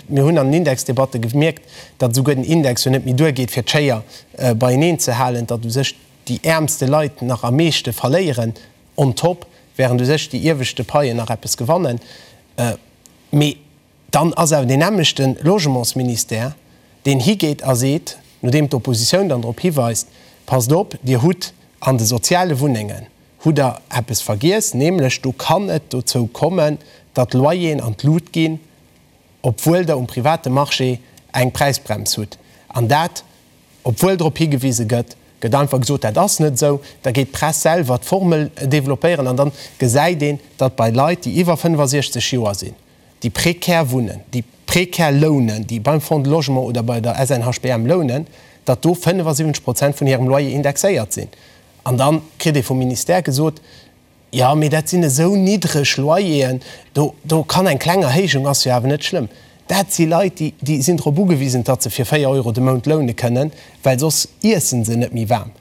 Mir hunn an den Indexdebatte gemierkt, datt esouguer den Index jo net méi duergeet, fir d'Schéier beieneen ze halen, datt u sech déi äermste Leit nach am meeschte verléieren on top, während u sech déi ieweschte Paien nach eppes gewannen. Mee Dann ass awer deen nämmlechte Logementsministère, deen higeet a seet, nodeem d'Oppositioun dann drop hiweist, Passt op, Dir hutt an de soziale Wunnengen hutt Der eppes vergiess, nämlech do kann et dozou kommen, datt d'Loyeren an d'Lut ginn, obwuel Der um private Marché eng Präisbrems hutt. An dat, obwuel drop higewise gëtt, gëtt einfach gesot, dat ass net esou. Da geet d'Press selwer d'Formel developpéieren an dann gesäit een, datt bei Leit, déi iwwer 65 Joer sinn, déi prekär wunnen, déi prekär lounen, déi beim Fonds de Logement oder bei der SNHBM lounen, datt do 75 Prozent vun hirem Loyer indexéiert sinn. An da kritt ee vum Ministère gesot, Jo, mee dat sinn esou niddreg Loyeren, do, do kann eng kleng Erhéijung ass jo awer net schlëmm. Dat si Leit, déi, déi sinn drop ugewisen, datt se fir 4 Euro de Mount loune kënnen, well soss iessen se net méi waarm.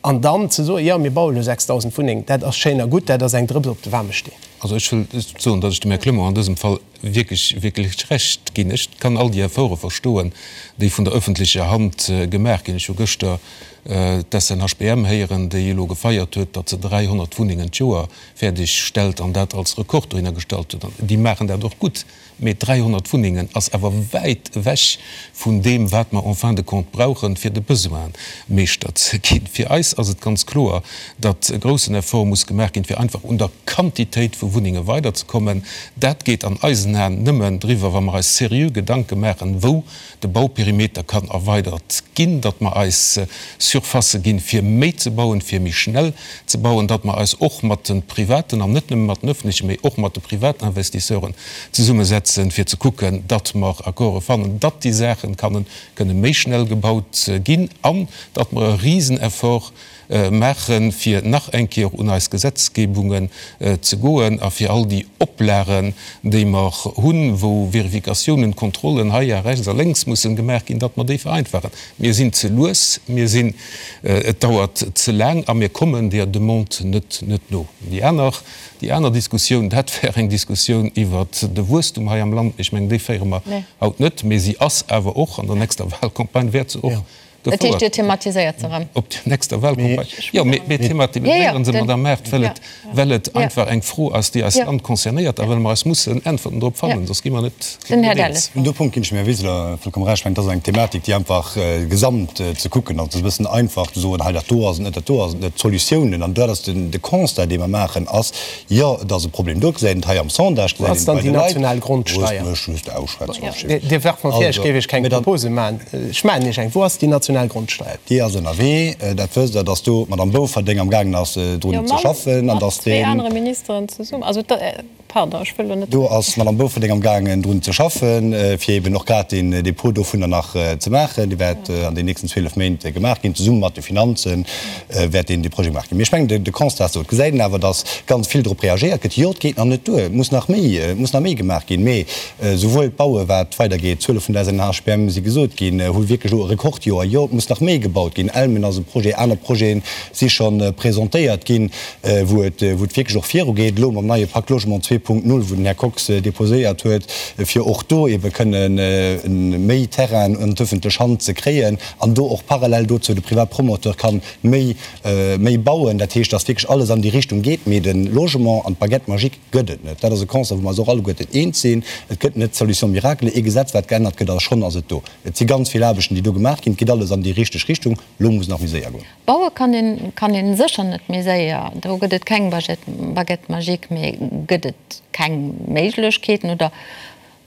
An dann ze soen, jo, mir baue lo 6.000 Wunnengen, dat ass schéin a gutt, dat ass eng Drëps op de waarme Steen. Also ech wëll soen, datt ech dem Här Clement an dësem Fall. wierklech, wierklech Recht ginn. Ech kann all déi Efforte verstoen, déi vun der öffentlecher Hand gemaach ginn. Ech hu gëschter d'SNHBM héieren, déi elo gefeiert huet, datt se 300 Wunnengen d'Joer fäerdeg stellt an dat als Rekord dohinner gestallt huet. An déi maachen dat och gutt. Mee 300 Wunnengen ass awer wäit ewech vun deem, wat mer en fin de compte brauchen, fir de Besoin Meeschter ze ginn. Fir eis ass et ganz kloer, datt e groussen Effort muss gemaach ginn, fir einfach un der Quantitéit vu Wunnenge weiderzekommen. Dat geet an eisen Aen nëmmen driwwer, wa mer eis seriö Gedanke maachen, wou de Bauperimeter kann erweidert ginn, datt mer eis Surfacë ginn, fir méi ze bauen, fir méi schnell ze bauen, datt mer eis och mat de privaten, an net nëmme mat den öffentlechen, mee och mat de privaten Investisseuren zesummesetzen, fir ze kucken, datt mer Accorde fannen, datt déi Saache kannen, kënne méi schnell gebaut ginn an datt mer e Riseneffort maachen, fir nach eng Kéier un eis Gesetzgebungen ze goen a fir all déi Oplagen, déi mer hunn, wou Vérificatiounen, Kontrollen hei a rechts a lénks mussen gemaach ginn, datt mer déi vereinfachen. Mir sinn ze lues, mir sinn, et dauert ze laang a mir kommen där Demande net, net no. Déi aner, déi aner Diskussioun, dat wär eng Diskussioun iwwert de Wuesstum hei am Land. Ech mengen, déi féiere mer haut net, mee si ass awer och an der nächster Wahlcampagne wäert se och Dat heescht, Dir thematiséiert se erëm? Op der nächster Wahlcampagne? Jo, mir thematiséiere se, Madame Mart, well et, well et einfach eng Fro ass, déi eist Land concernéiert a well mer eis mussen Äntwerten drop fannen, soss gi mer net eens. Un deem Punkt ginn ech dem Här Wiseler vollkomm Recht. Ech mengen, dat ass eng Thematik, déi einfach gesamt ze kucken ass. Et ass e bëssen einfach ze soen, hei dat do ass et net, dat do ass et net. D'Solutiounen, an dat ass de Constat, dee mer maachen, ass, Jo, et ass e Problem do, gesäit een et hei am Sondage, Wou gesäit ass een dann et bei déi de Leit. national Grondsteier? Loosst mech just ausschwätzen, Roger Schmit. Dir werft mer vir, ech Also, géif Iech keng mee dann. Propose maachen. Ech maachen Iech eng. Wou ass déi national Grondsteier? Déi ass ënnerwee. Dat wësst Der, dass do d'Madame Bouferdeng amgaangen ass, Jo, drun ze mam, schaffen an mat dass zwee deen. anere Ministeren zesummen. Also, da, pardon, ech wëll elo net. Do ass d'Madame Bouferdeng amgaangen, drun ze schaffen, fir eeben och grad deen Dépôt dovunner nach ze maachen. Dee wäert an den nächsten 12 Méint gemaach ginn, zesumme mat de Finanzen. wäert deen dee Projet gemaach ginn. Mee ech mengen, de Constat ass do. Et gesäit een awer, datt ganz vill drop reagéiert gëtt. Jo, et geet nach net duer, et muss nach méi, et muss nach méi gemaach ginn. Mee souwuel d'Baue wat weidergeet, d'Zuele vun der SNHBM si gesot ginn, hu wierklech elo e Rekordjoer. Jo, et muss nach méi gebaut ginn. Elmen ass e Projet, aner Projete si scho presentéiert ginn, wou et, wou et wierklech och virugeet. Elo mam neie Pacte Logement 2.0, wou den Här Kox deposéiert huet, fir och do eebe kënne méi Terrainen an d'ëffentlech Hand ze kréien. An do och parallel dozou de Privatpromoteur kann méi, méi bauen. Dat heescht, dass wierklech alles an déi Richtung geet. Mee de Logement an d'Baguette magique gëtt et net. Dat ass e Constat, wou mer eis och alleguerten eens sinn. Et gëtt net d'Solution miracle, ee Gesetz, wat geännert gëtt a schonn ass et do. Et si ganz vill Aarbechten, déi do gemaach ginn. Et geet alles an déi richteg Richtung. Elo muss et nach méi séier goen. Baue kann een, kann een sécher net méi séier. Do gëtt et keng Baguette magique. Mee gëtt et keng Méiglechkeeten oder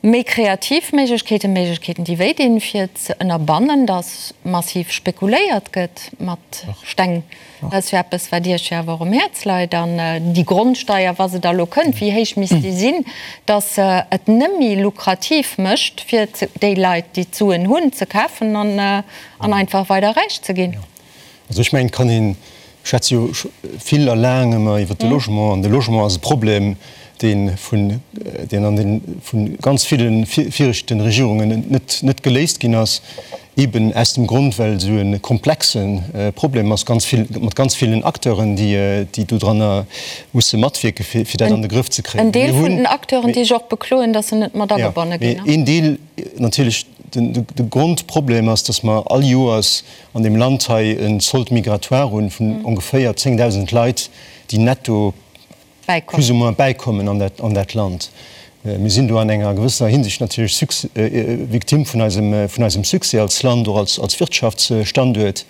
Méi kreativ Méiglechkeeten, Méiglechkeeten, déi wéi dinn, fir ze ënnerbannen, datt massiv spekuléiert gëtt mat Steng. Dat ass jo eppes, wat Iech jo awer och um Häerz leit. An déi Grondsteier, wa se da elo kënnt, wéi héich misst déi sinn, datt se et nëmme lukrativ mécht, fir déi Leit, déi d'Suen hunn, ze kafen an einfach weider räich ze ginn? Also ech mengen, et kann een, ech schwätze jo vill a laang ëmmer iwwert de Logement, an de Logement ass e Problem, dee vun, deen an de vu ganz ville viregten Regierungen net, net geléist ginn ass, eeben aus dem Grond, well esou e komplexe Problem ass, ganz vill, mat ganz villen Acteuren, déi, déi dodranner musse matwierken, fir, fir dat an de Grëff ze kréien. En Deel vun den Acteuren, déi sech och bekloen, datt se net mat agebonne ginn. Jo, mee een Deel natierlech, den, de Grondproblem ass, datt mer all Joers an deem Land hei e Solde migratoire hunn vun ongeféier 10.000 Leit, déi netto plus ou moins bäikommen an dat, an dat Land. Mir sinn do an enger gewëssener Hinsicht natierlech Victime vun eisem, vun eisem Succès als Land, och als, als Wirtschaftsstanduert.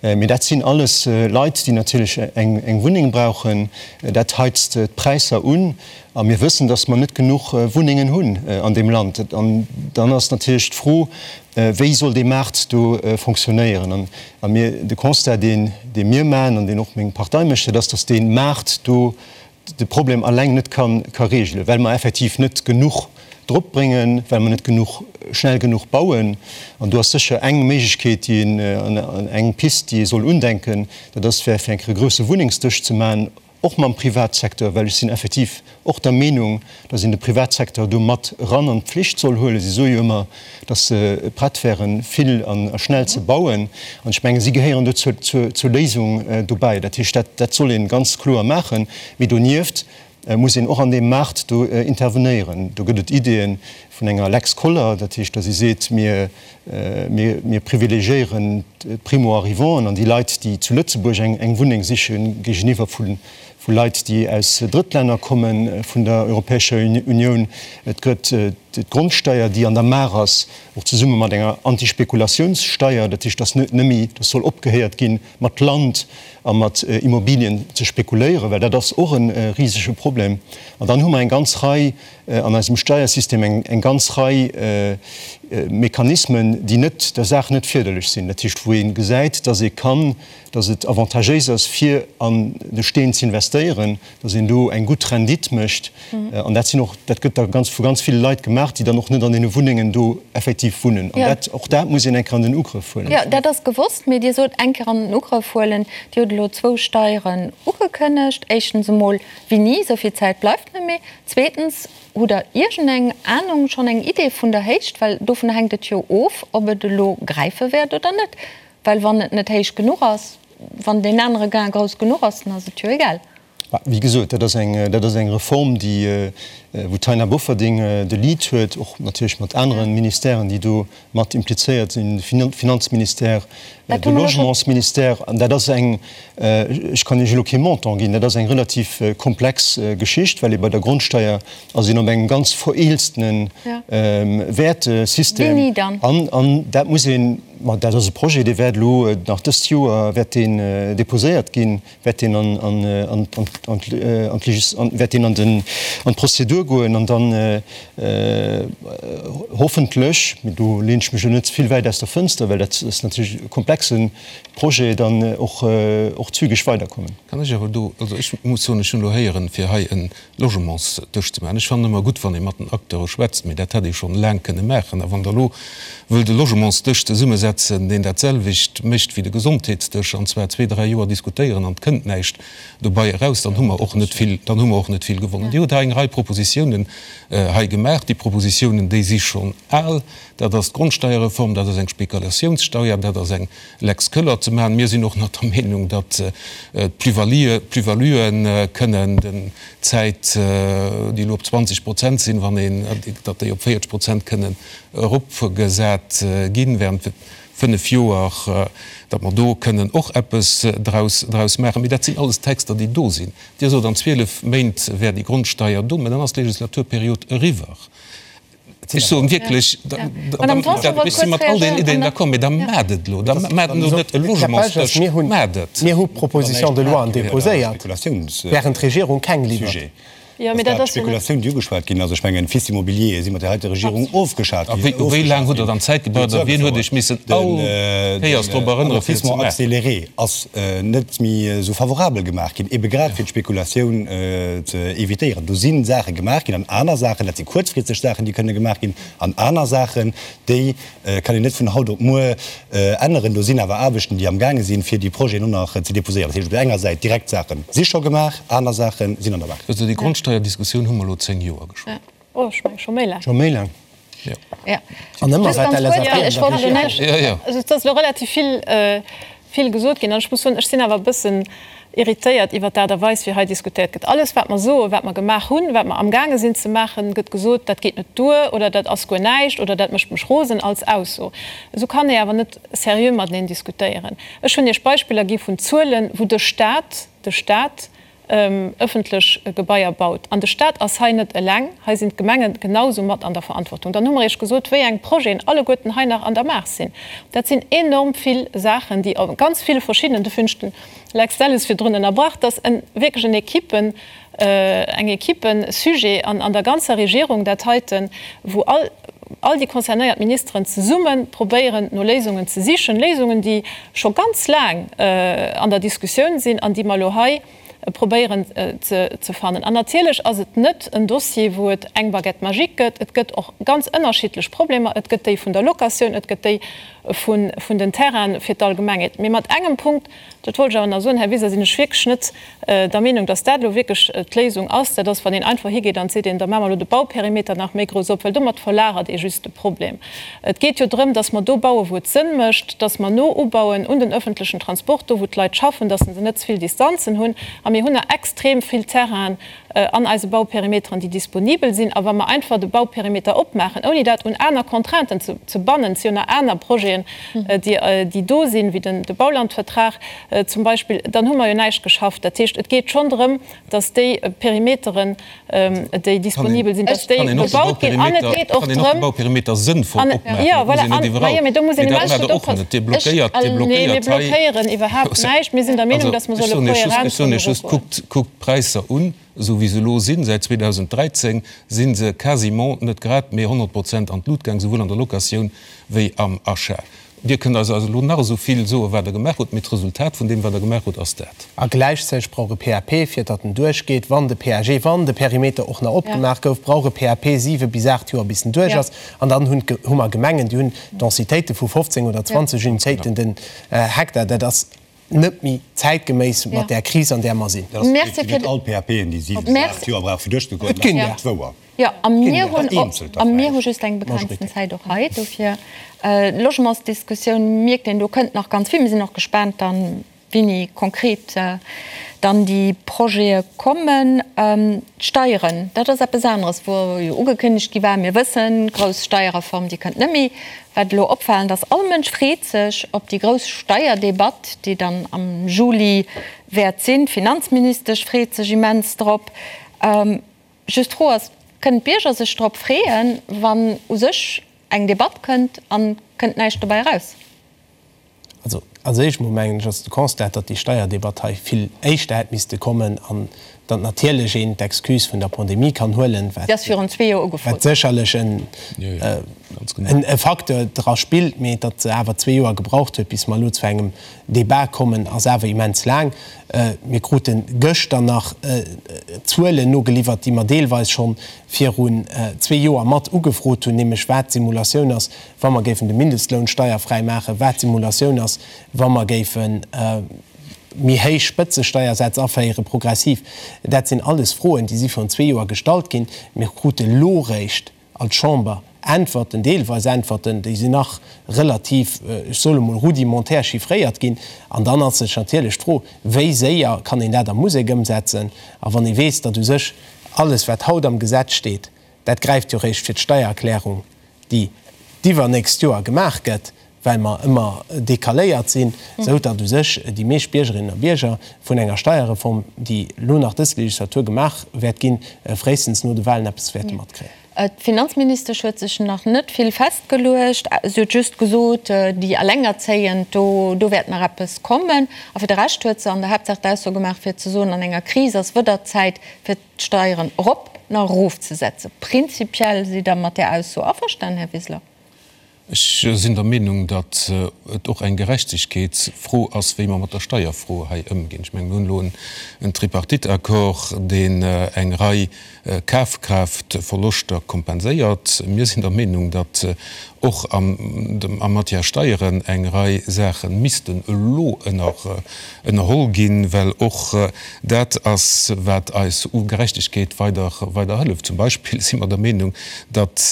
Mee dat sinn alles Leit, déi natierlech eng, eng Wunneng brauchen. Dat heizt d'Präisser un. A mir wëssen, dass mer net genuch Wunnengen hunn an deem Land. An dann ass natierlech d'Fro, Wéi soll dee Maart do fonctionnéieren? A mir, de Constat, deen, dee mir maachen an deen och meng Partei mécht, dat ass, datt dee Maart do de Problem alleng net ka, ka regelen, well mer effektiv net genuch drop bréngen, well mer net genuch, schnell genuch bauen. An do ass sécher eng Méiglechkeet, déi een, an eng Pist, déi ee soll undenken, dat ass, fir eng Kéier e grousse Wunnengsdësch ze maachen, Och mam Privatsecteur, well ech sinn effektiv och der Meenung, dass een de Privatsecteur do mat eran an d'Pflicht soll huelen. Si soe jo ëmmer, dass se prett wären, vill a schnell ze bauen. An ech mengen, si gehéieren do zur Léisung dobäi. Dat heescht, dat soll ee ganz kloer maachen. Mee donieft. muss een och an deem Maart do intervenéieren. Do gëtt et Ideeë vun enger Lex Koller, dat heescht, datt ee seet, mir, mir privilegiéieren d'Primo-arrivanten an déi Leit, déi zu Lëtzebuerg eng Wunneng sichen, géigeniwwer vu Leit, déi aus Drëttlänner komme vun der Europäescher Unioun. Et gëtt d'Grondsteier, déi an der Maach ass, och zesumme mat enger Antispekulatiounssteier, dat heescht, datt net méi, datt soll opgehéiert ginn, mat Land a mat Immobilien ze spekuléieren, well dat ass och e risege Problem. An dann hu mer eng ganz Rei an eisem Steiersystem eng ganz Rei Mechanismen, déi net der Saach net férderlech sinn, dat heescht wou ee gesäit, dass ee kann, dass et avantagéis ass fir an de Steen ze investéieren, dass een do eng gutt Rendite mécht. An dat sinn och, dat gëtt da ganz vu ganz ville Leit gemaach, déi dann och net an deene Wunnengen do effektiv wunnen. An dat, och dat muss een eng Kéier an den Ugrëff huelen. Jo, dat ass gewosst. Mee Dir sot, eng Kéier an den Ugrëff huelen. Dir hutt elo zwou Steieren ugekënnegt. Éischtens emol, wéini? Esou vill Zäit bleift net méi. Zweetens, hutt Der iergendeng Anung, schonn eng Idee vun der Héicht? Well dovun hänkt et jo of, ob et elo gräife wäert oder net. Well wann et net héich genuch ass, wann deen anere Gain grouss genuch ass, dann ass et jo egal. Wéi gesot, dat ass eng, dat ass eng Reform, déi, wou d'Taina Bofferding de Lead huet, och natierlech mat anere Ministèren, déi do mat implizéiert sinn, de Finanzministère, de Logementsministère. An dat ass eng, ech kann Iech elo kee Montant ginn, dat ass eng relativ komplex Geschicht, well ee bei der Grondsteier ass een op engem ganz vereelztene Wäertesystem. An dat muss een, ma dat ass e Projet, dee wäert elo nach dëst Joer wäert deen déposéiert ginn. wäert deen an wäert deen an den an d'Prozedur goen an dann hoffentlech, mee do leen ech mech elo net ze vill wäit aus der Fënster, well dat ass natierlech e komplexe Projet, dann och och zügeg weiderkommen. Kann ech awer do, also ech muss soen, ech hunn elo héieren, fir hei e Logementsdësch ze maachen. Ech fannen ëmmer gutt, wann ee mat den Acteure schwätzt, mee dat hätt ee schonn laang kënne maachen. A wann Der elo wëllt e Logementsdësch zesummesetzen, deen dat selwecht mécht wéi de Gesondheetsdësch, an zwar zwee, dräi Joer diskutéieren an et kënnt näischt dobei eraus, dann hu mer och net vill, dann hu mer och net vill gewonnen. Dir hutt hei eng Rei Propositiounen hei gemaach. Déi Propositiounen, déi si schonn al. Dat ass d'Grondsteierreform, dat ass eng Spekulatiounssteuer, dat ass eng Lex Köller ze maachen. Mir sinn och nach der Meenung, datt d'Plus-valuë kënnen den Zäit, déi elo op 20 Prozent sinn, wann een, datt déi op 40 Prozent kënnen eropgesat ginn während fënnef Joer, datt mer do kënnen och eppes draus, draus maachen. Mee dat sinn alles Texter, déi do sinn. Dir sot, an 12 Méint wär déi Grondsteier do, mä dann ass d'Legislaturperiod eriwwer. Ech soen wierklech, ech si mat all deenen Ideeën d'accord, mee da maacht et elo! Da maacht elo net e Logementsdësch, maacht et! Mir hu Propositions de loien déposéiert, während d'Regierung keng liwwert. Dass dat d'Spekulatioun, déi ugeschwat ginn ass, ech mengen, FIS Immobilier si mat där heiter Regierung ofgeschat ginn. A wéi laang hutt Der dann Zäit gebraucht a wien huet Iech missen all Kéiers drop erënnere fir et ze maachen? Den Amortissement accéléré ass net méi esou favorabel gemaach ginn, ebe grad fir d'Spekulatioun ze évitéieren. Do si Saache gemaach ginn an aner Saachen, dat si kuerzfristeg Saachen, déi kënne gemaach ginn, an aner Saachen, déi kann een net vun haut op muer änneren. Do sinn awer Aarbechten, déi amgaange sinn, fir déi Projeten och nach ze déposéieren. Dat heescht, op där enger Säit direkt Saache si scho gemaach, aner Saache sinn an der Maach. Also déi Grondsteierdiskussioun hu mer elo 10 Joer geschwat. Oh, ech menge scho méi laang. Scho méi laang. Jo. An ëmmer war d'LSAP an der Regierung. Jo, jo. Also et ass elo relativ vill, vill gesot ginn. An ech muss soen, ech sinn awer e bëssen irritéiert iwwert d'Aart a Weis, wéi hei diskutéiert gëtt. Alles, wat mer soen, wat mer gemaach hunn, wat mer amgaange sinn ze maachen, gëtt gesot, dat geet net duer oder dat ass guer näischt oder dat mécht mech rosen als Ausso. Esou kann ee awer net seriö mateneen diskutéieren. Ech hunn Iech Beispiller gi vun Zuelen, wou de Stat, de Stat, ëffentlech Gebaier baut. An de Stat ass hei net eleng, hei sinn d'Gemenge genau esou mat an der Verantwortung. Dann hu mer Iech gesot, wéi eng Projeten alleguerten hei nach an der Maach sinn. Dat sinn enorm vill Saachen, déi a ganz ville verschiddenen, dofir hunn ech den Lex Delles virdrun ënnerbrach, dass e wierklech en Equipen, eng Equipesujet an an der ganzer Regierung dat heiten, wou all, all déi concernéiert Ministeren zesumme probéieren, no Léisungen ze sichen, Léisungen, déi scho ganz laang an der Diskussioun sinn an déi mer elo hei probéieren ze fannen. An natierlech ass et net en Dossier, wou et eng Baguette magique gëtt. Et gëtt och ganz ënnerschiddlech Problemer. Et gëtt déi vun der Locatioun, et gëtt déi vun den Terrainen fir d'Allgemengheet. Mee mat engem Punkt, dat wollt ech awer nach soen, Här Wiseler, sinn ech wierklech net der Meenung, dass dat elo wierklech d'Léisung ass. Dat ass, wann een einfach higeet an seet een, da maache mer elo de Bauperimeter nach méi grouss op, well domat verlagert ee just de Problem. Et geet jo drëm, dass mer do bauen, wou et Sënn mécht, dass mer no ubauen un den öffentlechen Transport, do wou d'Leit schaffen, dass se net ze vill Distanzen hunn. mir hunn nach extrem vill Terrainen an eise Bauperimeteren, déi disponibel sinn. A wa mer einfach de Bauperimeter opmaachen, ouni dat un aner Contrainten ze bannen, et si jo nach aner Projeten, déi do sinn, wéi de Baulandvertrag zum Beispill, dann hu mer jo näischt geschafft. Dat heescht, et geet schonn drëm, dass déi Perimeteren, déi disponibel sinn, dass déi bebaut ginn. An et geet och drëm. Jo, voilà. An, ma jo, mee do muss een immens gutt oppassen. Nee, mir blockéieren iwwerhaapt näischt. Mir sinn der Meenung, dass mer solle kohärent kënnen erogoen. Kuckt d'Präisser un, esou wéi se elo sinn. Säit 2013 si se quasiment, net grad, mee 100 Prozent an d'Lut gaang, souwuel an der Locatioun wéi am Achat. Dir kënnt eis also elo nach esou vill soen, wat Der gemaach hutt, mee d'Resultat vun deem, wat Der gemaach hutt, ass dat. A gläichzäiteg brauch e PAP, fir datt en duerchgeet, wann de PAG, wann de Perimeter och nach opgemaach gouf, brauch e PAP siwe bis aacht Joer, bis en duerch ass. An dann hunn, hu mer Gemengen, déi hunn Densitéite vu 15 oder 20 Unitéiten den Hektar. Dat ass net méi zäitgeméiss mat där Kris, an där mer sinn. Merci fir. Net all PAPen, déi siwe bis aacht Joer brauche fir duerchzegoen, Et ginn der. Dat ass wouer. Jo, a mir hunn och, a mir hu just eng begrenzten Zäit och hei. Dofir, d'Logementsdiskussioun, mierkt een, do kënnt nach ganz vill. Mir sinn och gespaant dann, wéini konkret dann déi Projete kommen. D'Steieren, dat ass eppes aneres, wou jo ugekënnegt gi war, mir wëssen, grouss Steierreform, déi kënnt net méi. Wat elo opfalend ass, all Mënsch freet sech op déi grouss Steierdebatt, déi dann am Juli wäert sinn. D'Finanzministesch freet sech immens drop. Just d'Fro ass, Kënnen d'Bierger sech drop freeën, wann u sech eng Debatt kënnt an kënnt näischt dobäi eraus? Also als éischt mol mengen ech ass de Constat, datt déi Steierdebatt hei vill éischter hätt misste kommen an datt natierlech een d'Excuse vun der Pandemie kann huelen, wat wat sécherlech en e Facteur dra spillt, mee datt se awer zwee Joer gebraucht huet, bis mer elo zu engem Débat kommen, ass awer immens laang. Mir krute gëschter nach Zuelen nogeliwwert, déi mer deelweis scho virun zwee Joer mat ugefrot hunn, nämlech wat d'Simulatioun ass, wa mer géifen de Mindestloun steierfräi maachen, wat d'Simulatioun ass, wa mer géife méi héich Spëtzesteiersätz aféiere progressiv. Dat sinn alles Froen, déi si virun zwee Joer gestallt ginn. Mir krute lo réischt als Chamber Äntwerten, deelweis Äntwerten, déi sinn nach relativ, ech soe mol, rudimentär chiffréiert ginn. An dann ass sech natierlech d'Fro, Wéi séier kann een dat a Musek ëmsetzen? A wann ee weess, datt u sech alles, wat haut am Gesetz steet, dat gräift jo réischt fir d'Steiererklärung, déi d'iwwernächst Joer gemaach gëtt, well mer ëmmer decaléiert sinn, esou datt u sech déi meescht Biergerinnen a Bierger vun enger Steierreform, déi elo nach dës Legislatur gemaach wäert ginn, fréistens no de Wahlen eppes wäerte matkréien. D'Finanzministesch huet sech nach net vill festgeluecht. Si huet just gesot, déi Allengerzéiend, do do wäert nach eppes kommen. A fir de Rescht huet se an der Haaptsaach d'Ausso gemaach, fir ze soen, an enger Kris ass wëder Zäit, fir d'Steieren erop na erofzesetzen. Prinzipiell sidd Der mat där Ausso averstanen, Här Wiseler? Ech sinn der Meenung, datt et och eng Gerechtegkeetsfro ass, wéi mer mat der Steierfro hei ëmginn. Ech mengen, mir hunn elo en Tripartite-Accord, deen eng Rei Kafkraaftverloschter kompenséiert. Mir sinn der Meenung, datt och a Matière Steieren eng Rei Saache missten elo ënnerholl ginn, well och dat ass, wat eis u Gerechtegkeet weider hëlleft. Zum Beispill si mer der Meenung, datt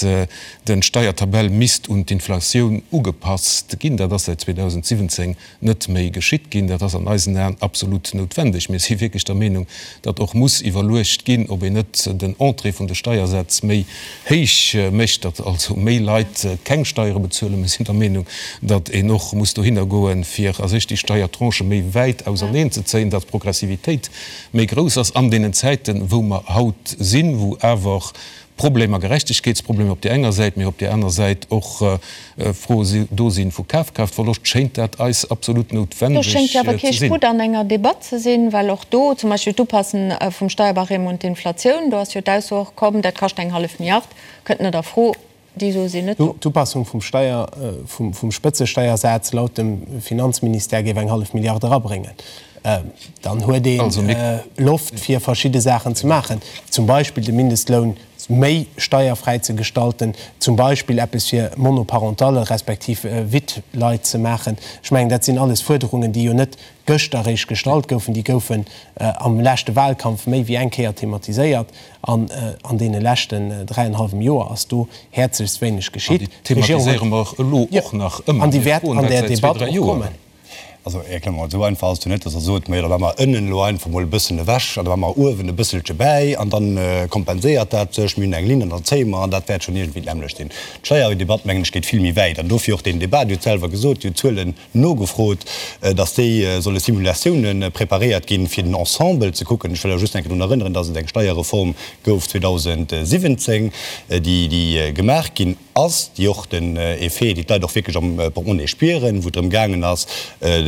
Den Steiertabell misst un d'Inflatioun ugepasst ginn. Dat ass säit 2017 net méi geschitt ginn. Dat ass an eisen Aen absolut noutwendeg. Mir si wierklech der Meenung, datt och muss iwwerluecht ginn, ob een net den Entrée vun de Steiersätz méi héich mécht, datt also méi Leit keng Steiere bezuelen. Mir sinn der Meenung, datt een och muss dohinner goen, fir a sech déi Steiertranchë méi wäit auserneen ze zéien, datt d'Progressivitéit méi grouss ass an deenen Zäiten, wou mer haut sinn, wou awer Problemer, Gerechtegkeetsproblemer op där enger Säit, mee op där aner Säit och Froe do sinn vu Kafkraaftverloscht, schéint dat eis absolut noutwendeg Do schéngt jo awer kee ze sinn. Sputt an enger Debatt ze sinn, well och do zum Beispill d'Upassen vum Steierbarème un d'Inflatioun, do ass jo d'Ausso och komm, dat kascht eng hallef Milliard, kënnt net a Fro. Déi Sue sinn net do. D'Upassung vum Steier, vum Spëtzesteiersaz laut dem Finanzministère géif eng hallef Milliard erabréngen. Dann huet ee Loft fir verschidde Saachen ze maachen, zum Beispill de Mindestloun méi steierfräi ze gestalten, zum Beispill eppes fir Monoparentalle respektiv Wittleit ze maachen. Ech mengen, dat sinn alles Fuerderungen, déi jo net gëschter eréischt gestallt goufen, déi goufen am leschte Wahlkampf méi wéi eng Kéier thematiséiert an an deene leschten dräienhallwem Joer ass do häerzlechst wéineg geschitt. An déi thematiséiere mer elo och nach ëmmer. An déi wäert an där Debatt och kommen. Also, Här Clement, esou einfach ass et jo net, dass Der sot, Majo, da maache mer ënnen elo einfach mol e bëssen ewech an da maache mer uewen e bësselche bäi an da kompenséiert dat sech. Mir hunn eng Linn an dann zéie mer an dat wäert schonn iergendwéi d'nämmlecht sinn. D'Steierdebatt, mengen ech, geet vill méi wäit an dofir och deen Débat. Dir hutt selwer gesot, Dir hutt d'Zuelen nogefrot, dass déi solle Simulatiounen preparéiert ginn, fir den Ensemble ze kucken. Ech wëll awer just eng Kéier drun erënneren, dass et eng Steierreform gouf 2017, déi gemaach ginn ass, déi och den Effet, déi d'Leit och wierklech am Portemonnaie spieren, wou et drëm gaangen ass,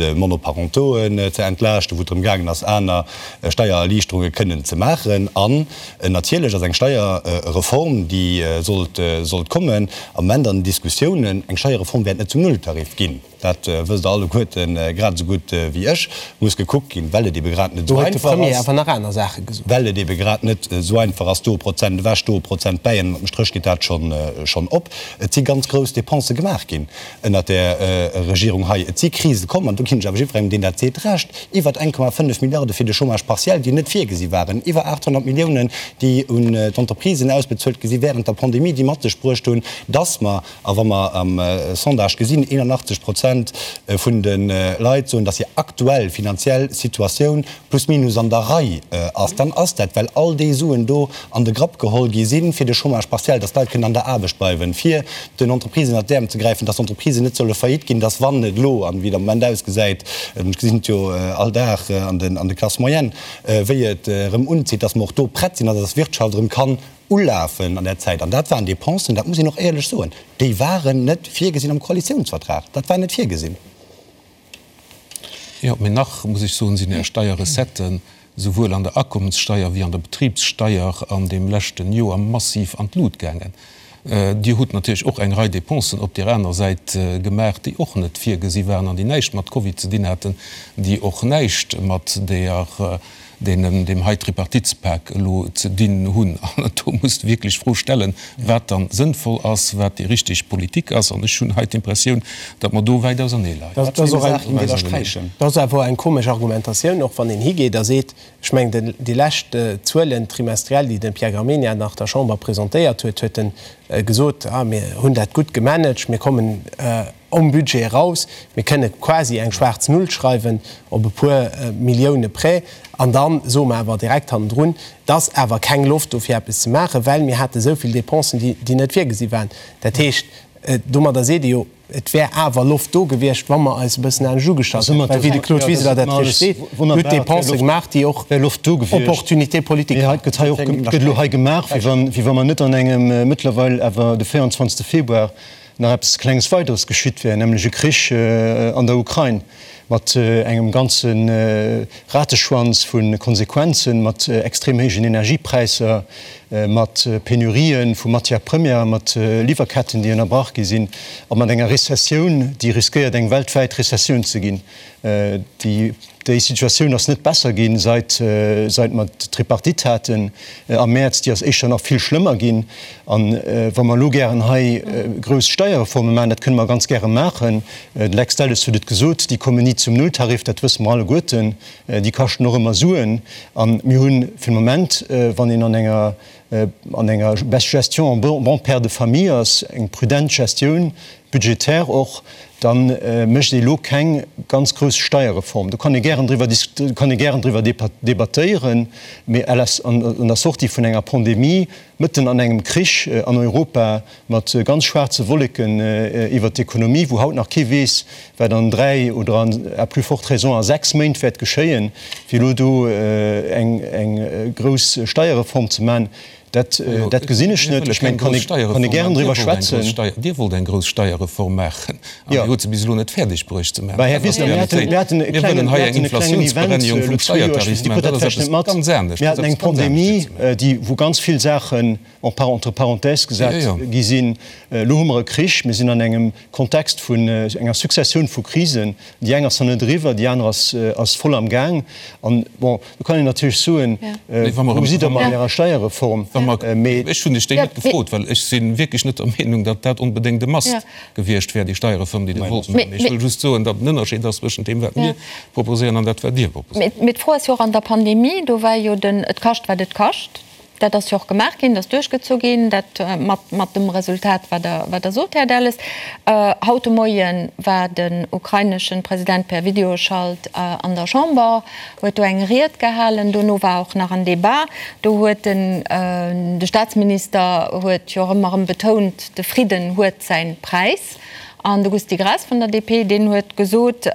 Monoparentoen ze entlaaschten, wou et drëm gaangen ass, aner Steiererliichterunge kënnen ze maachen. An natierlech ass eng Steierreform, déi sollt sollt kommen, am Moment an den Diskussiounen. Eng Steierreform wäert net zum Nulltarif ginn. Dat wësst Der alleguerten grad esou gutt wéi ech. Muss gekuckt ginn, well et ebe grad net esou einfach ass, well et ebe grad net esou einfach ass, do e Prozent ewech, do e Prozent bäi, an ënnert dem Stréch geet dat schonn op. Et si ganz grouss Depensë gemaach ginn ënnert där Regierung hei. Et si Krise komm, an do ginn ech awer jiddwerengem, deen dat seet, Recht, iwwer 1,5 Milliarde fir de Chômage partiel, déi net virgesi waren, iwwer 800 Milliounen, déi un d'Entreprisen ausbezuelt gi si während der Pandemie, déi mat sech bruecht hunn, dass mer A wa mer am Sondage gesinn, 81 Prozent vun de Leit soen, datt hir aktuell finanziell Situatioun plus minus an der Rei ass, dann ass dat, well all déi Suen do an de Grapp geholl gi sinn, fir de Chômage partiel, datt d'Leit kënnen an der Aarbecht bleiwen, fir den Entreprisen ënnert d'Äerm ze gräifen, datt d'Entreprisen net solle faillite ginn, datt wann et elo, an wéi et am Moment ausgesäit, ech gesinn et jo all Dag an de Classes moyennes, wéi et erëm unzitt, datt mer och do prett sinn an datt d'Wirtschaft erëm kann Ulafen an där Zäit, an dat waren Dépensen, dat muss een och éierlech soen, déi waren net virgesinn am Koalitionsvertrag. Dat war net virgesinn. Jo, mee nach muss ech soen, sinn Är Steierrecetten souwuel an der Akommenssteier wéi an der Betribssteier an deem leschten Joer massiv an d'Lut gaangen. Dir hutt natierlech och eng Rei Dépensen op där aner Säit gemaach, déi och net virgesi waren an déi näischt mat Covid ze dinn haten, déi och näischt mat där deenen deem hei Tripartitspak elo ze dinn hunn. An do muss de wierklech d'Fro stellen, wat dann sënnvoll ass, wat déi richteg Politik ass. An ech hunn hei d'Impressioun, datt mer do wäit ausernee leien. Dat ass awer eng komesch Argumentatioun, och wann een higeet a seet, ech mengen, déi lescht Zuelen trimestriell, déi de Pierre Gramegna nach der Chamber presentéiert huet, huet e gesot, ah mir hunn dat gutt gemanagt, mir kommen om Budget eraus, mir kënne quasi eng schwaarz Null schreiwen op e puer Millioune près. An da soe mer awer direkt hannendrun, et ass awer keng Loft do fir eppes ze maachen, well mir hate esou vill Dépensen, déi net virgesi waren. Dat heescht, domadder seet ee jo, et wär awer Loft do gewiescht, wa mer eis e bëssen anescht ugestallt hätten. Well wéi de Claude Wiseler dat richteg seet, Dir hutt Dépensë gemaach, déi och Opportunité politique waren. Et gëtt elo hei gemaach, wéi wa mer net an engem mëttlerweil awer de 24. Februar nach eppes Klenges Weideres geschitt wär, nämlech e Krich an der Ukrain mat engem ganze Rateschwanz vu Konsequenzen, mat extrem héijen Energiepräisser, mat Penurië vu Matières premières, mat Liwwerketten, déi ënnerbrach gi sinn, a mat enger Rezessioun, déi riskéiert eng weltwäit Rezessioun ze ginn. Déi Déi Situatioun ass net besser ginn, seit seit mer d'Tripartite haten am Mäerz. Déi ass éischter nach vill schlëmmer ginn. An wa mer elo gären hei grouss Steierreforme maachen, dat kënne mer ganz gäre maachen, de Lex Delles huet et gesot, déi kommen ni zum Nulltarif, dat wësse mer alleguerten, déi kaschten och ëmmer Suen. A mir hu fir de Moment, wann een an enger an enger Gestion en bon père de famille ass, eng prudent Gestioun budgétaire och, da mécht ee elo keng ganz grouss Steierreform. Do kann ee gären driwwer kann ee gären driwwer debattéieren, mee à la an der Sortie vun enger Pandemie, mëtten an engem Krich an Europa mat ganz schwaarze Wolleken iwwert d'Ekonomie, wou haut nach kee weess, wat an dräi oder an à plus forte raison a sechs Méint wäert geschéien, fir elo do eng grouss Steierreform ze maachen, dat dat gesinn ech net. Ech mengen, kann ee kann ee gären driwwer schwätzen. Dir wollt eng grouss Steierreform maachen an Dir hutt se bis elo net fäerdeg bruecht ze maachen. Här Wiseler, mir haten mir haten e klengen, mir haten e klengen Event elo zwee Joer, ech weess, Dir krut dat vläicht net mat, mir haten eng Pandemie, déi wou ganz vill Saachen en par entre parenthèses gesat gi sinn. Elo hu mer e Krich, mir sinn an engem Kontext vun enger Successioun vu Krisen. Déi eng ass nach net eriwwer, déi aner ass voll am Gaang. An, bon, do kann een natierlech soen, Wou sidd Der mat Ärer Steierreform? Mee. Ech hunn lech déi net gefrot, well ech si wierklech net der Meenung, datt dat onbedéngt e Must gewiescht wär, déi Steierreform, déi Dir wollt maachen. Mee ech wëll just soen, datt en Ënnerscheed ass zwëschent deem, wat mir proposéieren, an dat, wat Dir proposéiert. Mee d'Fro ass jo och an der Pandemie, do war jo den et kascht, wat et kascht. Dat ass jo och gemaach ginn, dat ass duerchgezu ginn, dat mat, mat dem Resultat, wat Der, wat Der sot, Här Delles. Haut de Moie war den ukraineschen President per Videoschalt an der Chamber, huet do eng Ried gehalen. Dono war och nach en Debat. Do huet den, de Staatsminister huet jo och ëmmer erëm betount, de Fridden huet säin Präis. An de Gusty Graas vun der DP, deen huet gesot,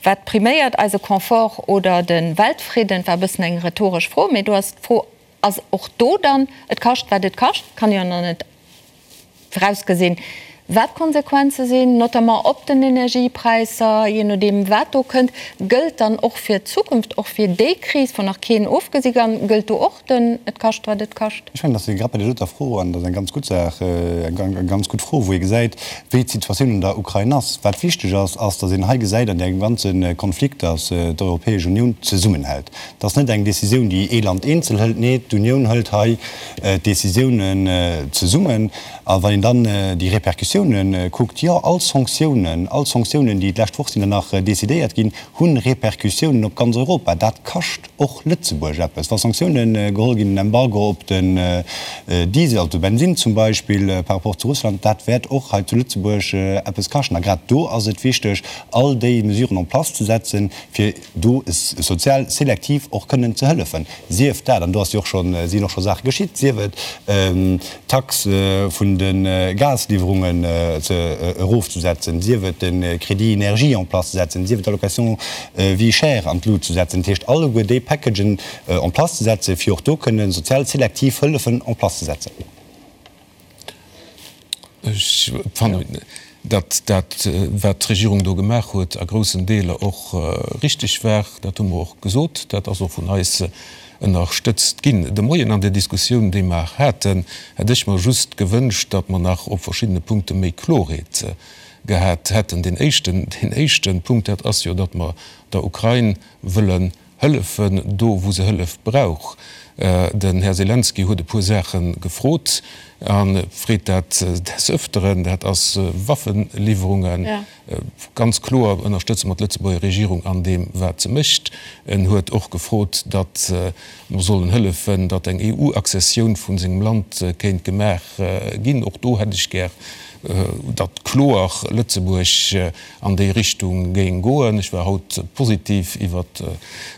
Wat priméiert, eise Confort oder de Weltfridden? War e bëssen eng rhetoresch Fro, mee do ass d'Fro, ass och do dann, et kascht wat et kascht, kann jo nach net virausgesinn, wat d'Konsequenze sinn, notamment op den Energiepräisser, jee nodeem wat do kënnt. Gëllt dann och fir d'Zukunft, och fir déi Kris, wou nach keen ofgesi kann, gëllt do och den et kascht wat et kascht? Ech mengen, dass ee grad bei där doter Fro, an dat ass eng ganz gutt Saach, eng ganz gutt Fro, wou ee gesäit, wéi d'Situatioun an der Ukrain ass. Wat wichteg ass, ass, dass een hei gesäit an deem ganze Konflikt, dass d'Europäesch Unioun zesummenhält. Dat ass net eng Décisioun, déi ee Land eenzel hëlt, nee, d'Unioun hëlt hei d'Décisiounen zesummen. A wann een dann déi Répercussiounen kuckt, jo, all Sanktiounen, all Sanktiounen, déi d'lescht Woch sinn der nach decidéiert ginn, hu Répercussiounen op ganz Europa. Dat kascht och Lëtzebuerg eppes. Wa Sanktiounen geholl ginn, en Embargo op den Diesel, op de Bensinn zum Beispill par rapport zu Russland, dat wäert och hei zu Lëtzebuerg eppes kaschten. A grad do ass et wichteg, all déi Mesuren en place ze setzen, fir do sozial selektiv och kënnen ze hëllefen, sief dat, an do ass jo och schonn, sinn och scho Saache geschitt, sief et d'Tax vun de Gasliwwerungen ze erofzesetzen, sief et de Crédit énergie en place ze setzen, sief et d'Allocation vie chère an d'Lut ze setzen, dat heescht alleguer déi Packagen en place ze setzen, fir och do kënnen sozial selektiv Hëllefen en place ze setzen. Ech fannen, datt dat, wat d'Regierung do gemaach huet, a groussen Deeler och richtig war. Dat hu mer och gesot. Dat ass och vun eis ënnerstëtzt ginn. De Moien an der Diskussioun, déi mer haten, hätt ech mer just gewënscht, datt mer nach op verschiddene Punkte méi Klorheet gehat hätten. Deen éischten, deen éischte Punkt, dat ass jo, datt mer der Ukrain wëllen Hëllefen do, wou se Hëllef brauch. Den Här Selenskyj huet e puer Saache gefrot a freet dat des Öfteren. Dat ass Waffeliwwerungen. Ganz kloer ënnerstëtze mer d'Lëtzebuerger Regierung an deem, wat se mécht. En huet och gefrot, datt mer sollen hëllefen, datt eng EU-Accessioun vu sengem Land kéint gemaach ginn. Och do hätt ech gär, datt kloer Lëtzebuerg an déi Richtung géing goen. Ech war haut positiv iwwert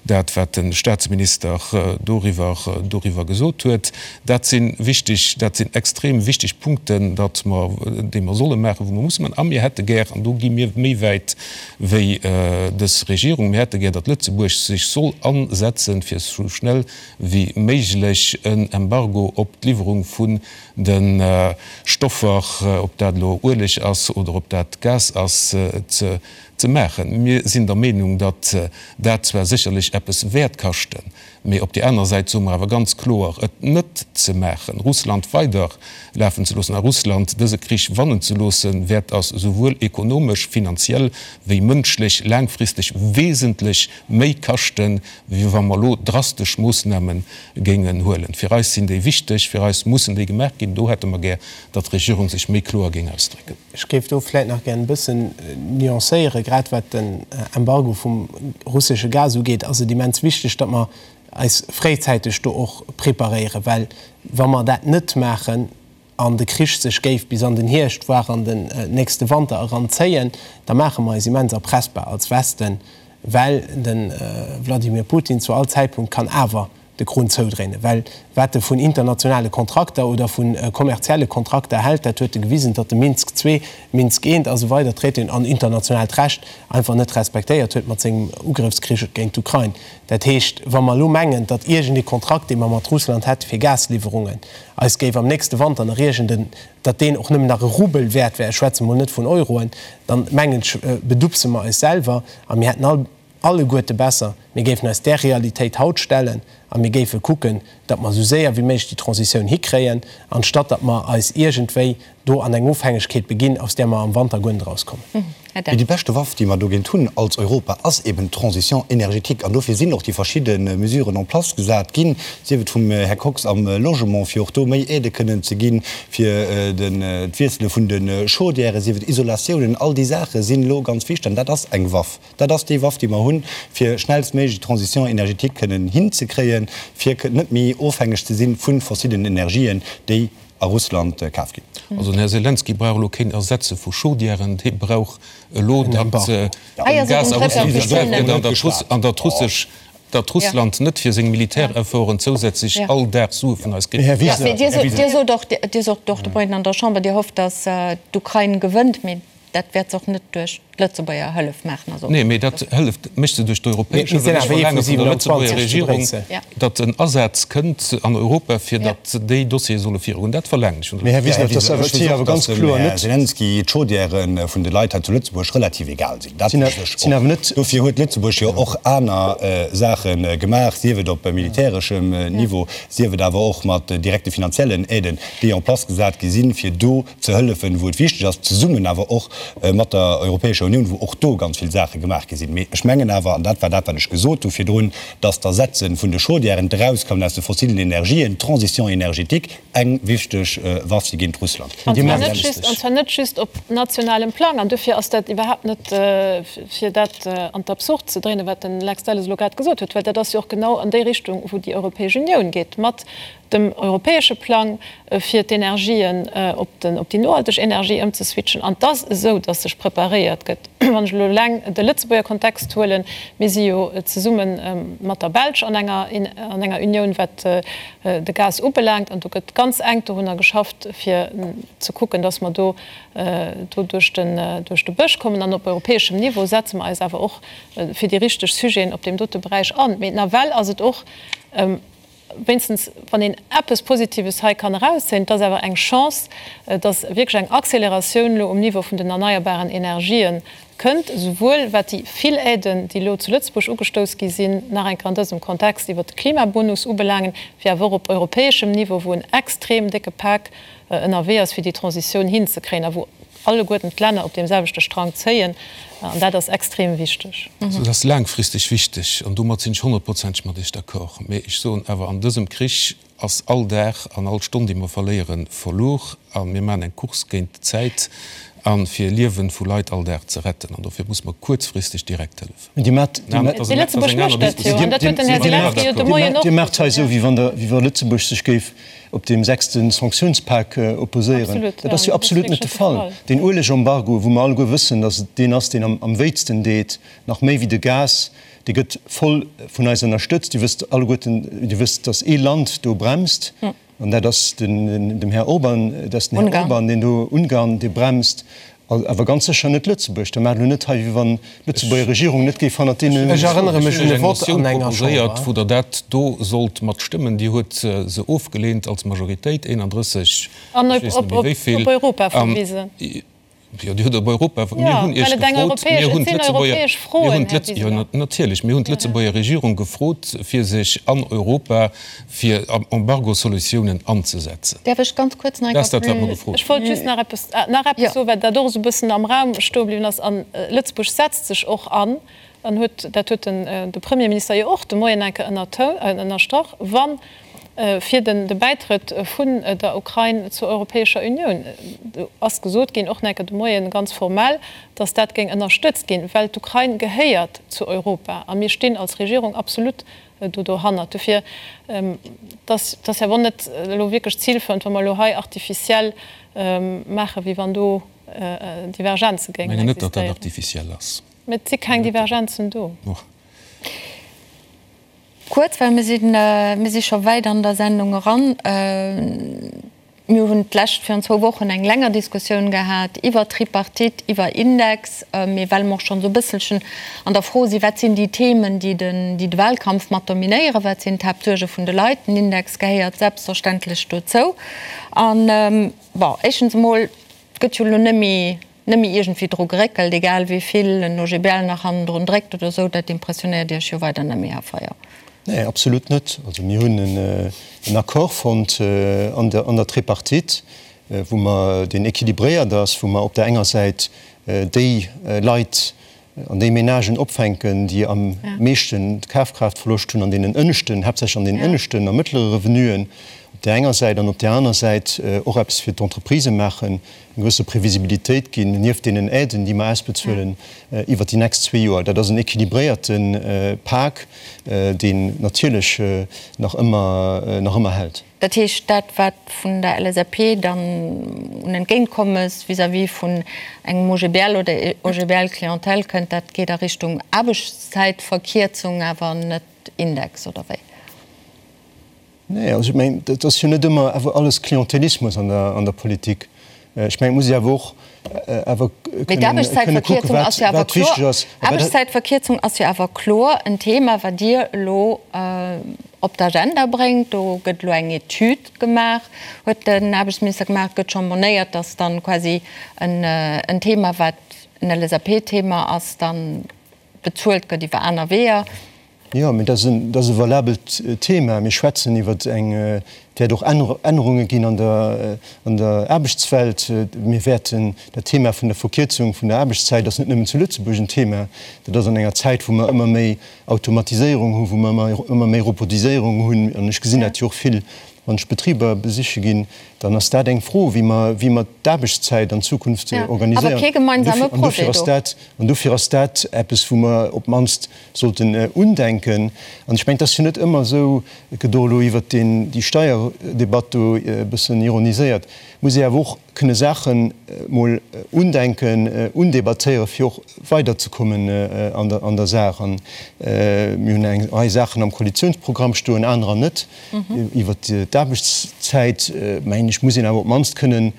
dat, wat de Statsminister doriwwer, doriwwer gesot huet. Dat si wichteg, dat sinn extrem wichteg Punkten, datt mer, déi mer solle maachen, wou mer musse maachen. A mir hätte gär, an do gi mir méi wäit wéi dës Regierung, mir hätte gär, datt Lëtzebuerg sech soll asetzen, fir esou schnell wéi méiglech en Embargo op d'Liwwerung vun de Stoffer, ob dat elo Ueleg ass oder ob dat Gas ass, ze maachen. Mir sinn der Meenung, datt dat zwar sécherlech eppes wäert kaschten, mee op déi aner Säit soe mer awer ganz kloer, et net ze maachen, Russland weider lafen ze loossen a Russland dëse Krich wannen ze loossen, wäert ass esouwuel ekonomesch, finanziell wéi mënschlech laangfristeg wesentlech méi kaschten, wéi wa mer elo drastesch Moossname géingen huelen. Fir eis sinn déi wichteg, fir eis mussen déi gemaach ginn. Do hätte mer gär, datt d'Regierung sech méi kloer géing ausdrécken. Ech géif do vläicht nach gär e bëssen nuancéieren. Grad wat den Embargo vum russesche Gas ugeet, ass et immens wichteg, datt mer eis fréizäiteg do och preparéieren, well wa mer dat net maachen, an de Krich sech géif bis an den Hierscht, voire an den nächste Wanter eran zéien, da maache mer eis immens erpressbar als Westen, well de Wladimir Putin zu all Zäitpunkt kann awer de Krunn zoudréinen. Well wat e vun internationale Kontrakter oder vu kommerzielle Kontrakter hält, dat huet e gewisen, datt e Minsk ii, Minsk I a sou weider Traitéen an internationaalt Recht einfach net respektéiert huet mat sengem Ugrëffskrich géint d'Ukrain. Dat heescht, wa mer elo mengen, datt iergend ee Kontrakt, dee mer mat Russland hätte fir Gasliwwerungen, eis géif am nächste Wanter nach iergend en, datt deen och nëmmen nach e Rubel wäert wär, ech schwätze mol net vun Euroen, dann mengen ech, bedupse mer eis selwer a mir hätten all, alleguerte besser, mir géifen eis där Realitéit haut stellen a mir géife kucken, datt mer esou séier wéi méiglech déi Transitioun hikréien, anstatt datt mer eis iergendwéi do an eng Ofhängegkeet beginn, aus där mer am Wanter guer net erauskommen. Mee déi beschte Waff, déi mer dogéint hunn als Europa, ass eben d'Transition énergétique. An dofir sinn och déi verschidde Mesuren en place gesat ginn, sief et vum Här Kox am Logement, fir och do méi Aidë kënnen ze ginn, fir d'Wiessele vun de Chaudièren, sief et Isolatiounen, all déi Saache sinn elo ganz wichteg. An dat ass eng Waff. Dat ass déi Waff, déi mer hunn, fir schnellstméiglech d'Transition énergétique kënnen hinzekréien, fir net méi ofhängeg ze si vu fossilen Energien, déi a Russland kaf ginn. Also den Här Selenskyj brauch elo keen Ersetze vu Chaudièren, dee brauch elo, datt Gas a Russland versuergt gëtt an datt russesch, datt Russland net fir seng Militärefforten zousätzlech all Dag Sue vun eis kritt. Här Wiseler, Dir sot och, Dir sot och de Moien an der Chamber, Dir hofft, datt d'Ukrain gewënnt, mee dat wäert se och net duerch d'Lëtzebuerger Hëllef maachen. Also. Nee, mee dat Hëllef mécht se duerch d'europäesch Hëllef. Ech verlaange vun der Lëtzebuerger Regierung, datt en Asaz kënnt an Europa, fir datt déi Dossiere solle virugoen. Dat verlaangen ech vun der Lëtzebuerger Regierung. Här Wiseler, ech weess och, datt dem Här Selenskyj d'Chaudièrë vun de Leit hei zu Lëtzebuerg relativ egal sinn. Dat weess ech och. Dofir huet Lëtzebuerg jo och aner Saache gemaach, sief et op militäreschem Niveau, sief et awer och mat direkte finanziellen Aiden, déi en place gesat gi sinn, fir do ze hëllefen, wou et wichteg ass, zesummen awer och mat der Europäescher Unioun, wou och do ganz vill Saache gemaach gi sinn. Mee ech mengen awer, an dat war dat, wat ech gesot hu virdrun, dass d'Ersetze vun de Chaudièren, d'Erauskommen aus de fossilen Energien, d'Transition énergétique eng wichteg Waff si géint Russland. An zwar net just, an zwar net just op nationalem Plang. An dofir ass dat iwwerhaapt net, fir dat an d'Absurd ze dréinen, wat den Lex Delles elo grad gesot huet, well dat ass jo och genau an déi Richtung, wou déi Europäesch Unioun geet mat dem europäesche Plang, fir d'Energien op déi nohalteg Energie ëmzeswitchen. An et ass esou, datt sech preparéiert gëtt. Wann ech elo eleng de Lëtzebuerger Kontext huelen, Mir si jo zesumme mat der Belsch an enger an enger Unioun, wat de Gas ubelaangt. An do gëtt ganz enk dorunner geschafft, fir ze kucken, datt mer do do duerch den duerch de Bësch kommen. An op europäeschem Niveau setze mer eis awer och fir déi richteg Sujeten op deem dote Beräich an. Mee nawell ass et och, Wéinstens wann een eppes Positives hei kann erauszéien, et ass awer eng Chance, dass wierklech eng Acceleratioun elo um Niveau vun den erneierbaren Energië kënnt, esouwuel wat déi vill Aiden, déi elo zu Lëtzebuerg ugestouss gi sinn, nach eng Kéier an dësem Kontext iwwert de Klimabonus ubelaangen, wéi awer och op europäeschem Niveau, wou en extrem décke Pak ënnerwee ass, fir déi Transitioun hinzekréien a wou alleguerten d'Länner op deem selwechte Strang zéien, an dat ass extrem wichteg. Dat ass laangfristeg wichteg, an domat sinn ech honnertprozenteg mat Iech d'accord. Mee ech soen awer, an dësem Krich ass all Dag an all Stonn, déi mer verléieren, verluer. A mir maachen eng Course géint d'Zäit a fir Liewe vu Leit all Dag ze retten. An dofir muss mer kuerzfristeg direkt hëllefen. Dir maacht hei esou, wéi wa Lëtzebuerg sech géif op deem sechste Sanktiounspak opposéieren. Dat ass jo absolut net de Fall. Deen Uelegembargo, wou mer alleguer wëssen, datt et deen ass, deen am wéitsten deet, nach méi wéi de Gas, dee gëtt voll vun eis ënnerstëtzt. Dir wësst alleguerten, Dir wësst, datt ee Land do bremst, An dat ass den dem Här Orban, dat ass den Här Orban, deen do Ungarn, dee bremst, awer ganz sécher net Lëtzebuerg. Da maacht elo net hei, wéi wann d'Lëtzebuerger Regierung net géif hannert deene. Ech erënnere mech un e Vott an enger Chamber. Wou Der dat do sollt mat stëmmen. Dir huet se ofgeleent als Majoritéit, 31, ech weess net méi wéi vill. An op Europa verwisen. Jo, Dir hutt op Europa, mir hunn Iech gefrot, mir hunn d'Lëtzebuerger, mir hunn d'Lëtz, jo natierlech, mir hunn d'Lëtzebuerger Regierung gefrot, fir sech an Europa fir Embargosolutiounen anzesetzen. Däerf ech ganz kuerz nach eng Dat ass dat, wat mer gefrot hunn. Ech wollt just nach eppes, nach eppes soen, well dat och esou e bëssen am Raum stoe bliwwen ass. A Lëtzebuerg setzt sech och an, an huet, dat huet den, de Premierminister jo och de Moien eng Kéier ënnerstrach, wann fir den de Bäitrëtt vun der Ukrain zur Europäescher Unioun. Do ass gesot ginn, och nach eng Kéier de Moien ganz formell, datt dat géing ënnerstëtzt ginn, well d'Ukrain gehéiert zu Europa a mir stinn als Regierung absolut do dohannert. Dofir, dass ass jo awer net elo wierklech zilförend, wa mer elo hei artificiel maachen, wéi wann do Divergenze géingen existéieren. Ech mengen net, datt dat artificiel ass. Mä et si keng Divergenzen do. Kuerz, well mir sinn, mir si scho wäit an der Sendung eran. Mir hunn d'lescht, virun zwou Wochen eng länger Diskussioun gehat iwwer Tripartite, iwwer Index. Mee well mer och schonn esou e bësselchen an der Fro sinn, wat sinn déi Themen, déi den, déi de Wahlkampf mat dominéieren, wat sinn d'Haaptsuerge vun de Leit, den Index gehéiert selbstverständlech dozou. An, bon, éischtens emol, et gëtt jo elo net méi, net méi iergendwéi dru geréckelt, egal wéi vill en OGBL nach hannendrun dréckt oder esou, dat impressionéiert Iech jo weider net méi, Här Feyer? Nee, absolut net. Also mir hunn en Accord fonnt an der Tripartite. wou mer, deen équilibréiert ass, wou mer op der enger Säit déi Leit an déi Ménagen opfänken, déi am meeschten Kafkraaftverloscht hunn an deenen ënneschten, haaptsächlech an deenen ënneschten a mëttlere Revenuen op där enger Säit, an op där aner Säit och eppes fir d'Entreprisë maachen, eng gewësse Previsibilitéit ginn, nieft deenen Aiden, déi mer ausbezuelen iwwert déi nächst zwee Joer. Dat ass en équilibréierte Pak, deen natierlech nach ëmmer, nach ëmmer hält. Dat heescht, dat wat vun der LSAP dann un Entgéintkommes vis-à-vis vun engem OGBL oder OGBL-Clientèle kënnt, dat geet a Richtung Aarbechtszäitverkierzung, awer net Index, oder wéi? Nee, also ech mengen, dat ass jo net ëmmer awer alles Klientelismus an der Politik. Ech mengen, et muss ee awer och awer Mee kënne kucken, wat wat wichteg ass. D'Aarbechtszäitverkierzung ass jo awer kloer en Thema, wat Dir elo op d'Agenda bréngt. Do gëtt elo eng Etüd gemaach, huet den Aarbechtsminister gemaach. Et gëtt scho monéiert, datt dann quasi en Thema, wat en LSAP-Thema ass, dann bezuelt gëtt iwwer aner Weeër. Jo, mee dat ass e valabelt Thema. Mir schwätzen iwwer eng, et wäert och Ännerunge ginn an der an der Aarbechtswelt. Mir wäerten, dat Thema vun der Verkierzung vun der Aarbechtszäit ass net nëmmen zu Lëtzebuerg en Thema. Dat ass an enger Zäit, wou mer ëmmer méi Automatiséierung hunn, wou mer ëmmer méi Robotiséierung hunn, an ech gesinn dat jo och vill, wann ech Betriber besiche ginn, dann ass dat eng Fro, wéi mer, wéi mer d'Aarbechtszäit an Zukunft organiséieren. An dofir ass dat, an dofir ass dat eppes, wou mer op d'mannst sollten undenken. An ech mengen, et ass jo net ëmmer esou, et gëtt och elo iwwert deen, déi Steierdebatt do e bëssen ironiséiert, muss ee awer och kënne Saache mol undenken, undebattéieren, fir och weiderzekommen an der, an der Saach. An mir hunn eng Rei Saachen am Koalitionsprogramm stoen, anerer net. Iwwert d'Aarbechtszäit, mengen ech, muss een awer op d'mannst kënnen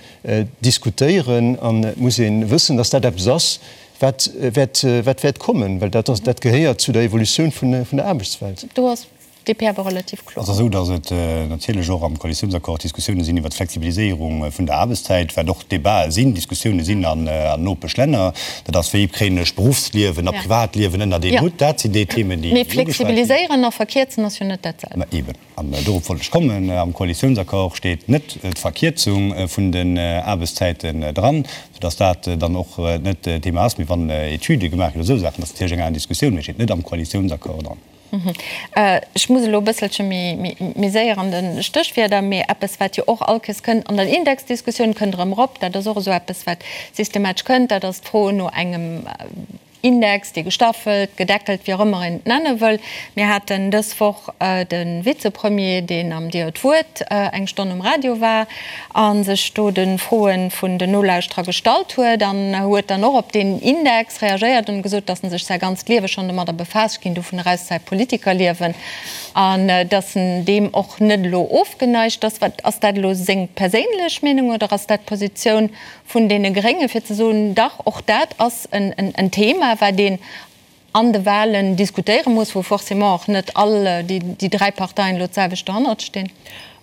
diskutéieren an et muss ee wëssen, dass dat eppes ass, wat wäert, wat wäert kommen, well dat ass, dat gehéiert zu der Evolutioun vun der Aarbechtswelt. Do ass d'DP awer relativ kloer. Et ass esou, datt et natierlech och am Koalitiounsaccord Diskussioune sinn iwwert d'Flexibiliséierung vun der Aarbechtszäit, wat och Debatë sinn, Diskussioune sinn an Nopeschlänner. Dat ass, wéi kréien ech Beruffsliewen a Privatliewen ënnert een Hutt? Dat sinn déi Themen, déi ugeschwat ginn. Mee flexibiliséieren a verkierzen ass jo net dat selwecht. Ma eeben. An dorop wollt ech kommen. Am Koalitiounsaccord steet net d'Verkierzung vun den Aarbechtszäiten dran, soudass dat dann och net Thema ass. Mee wann Etüde gemaach ginn oder esou Saachen, dat ass natierlech eng aner Diskussioun, mee steet net am Koalitiounsaccord dran. Ech muss elo e bësselche méi séier an de Stéchwierder, mee eppes, wat jo och all Kéiers kënnt an der Indexdiskussioun, kënnt erëm erop, dat ass och esou eppes, wat systematesch kënnt, dat ass d'Fro no engem Index, dee gestaffelt, gedeckelt, wéi och ëmmer een et nenne wëll. Mir haten dës Woch de Vizepremier, deen am Dir huet d'Wuert eng Stonn um Radio war a sech do de Froe vun den Nolauschterer gestallt huet an huet dann och op deen Index reagéiert an gesot, datt en sech säi ganzt Liewe schonn domadder befaasst, ech ginn dovun eraus, säi Politikerliewen, an datt en deem och net elo ofgeneigt ass. Wat ass dat elo seng perséinlech Meenung oder ass dat d'Positioun vun deene Grénge fir ze soen, dach, och dat ass en Thema, wat een an de Wahlen diskutéiere muss, wou forcément och net all déi dräi Parteien elo d'selwecht dohannert stinn.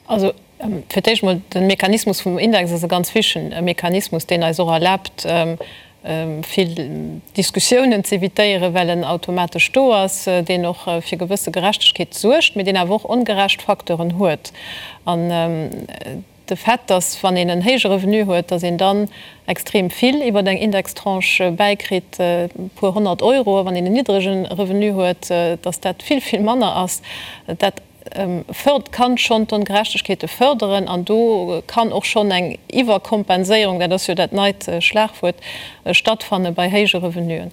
Also fir d'éischt emol, de Mechanismus vum Index ass e ganz wichtige Mechanismus, deen eis och erlaabt, vill Diskussiounen z'évitéieren, well en automatesch do ass, deen och fir gewësse Gerechtegkeet suergt, mee deen awer och ongerecht Facteuren huet. An De Fait, dass wann een en héije Revenu huet, dass een dann extrem vill iwwer eng Indextranche bäikritt, e puer 100 Euro, a wann een en niddrege Revenu huet, dass dat vill, vill manner ass, dat fërdert, kann schonn d'Ongerechtegkeete fërderen an do kann och schonn eng Iwwerkompenséierung, dat ass jo dat neit Schlagwuert, stattfanne bei héije Revenuen.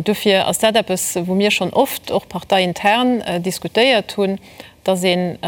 Dofir ass dat eppes, wou mir schonn oft och parteiintern diskutéiert hunn, dass een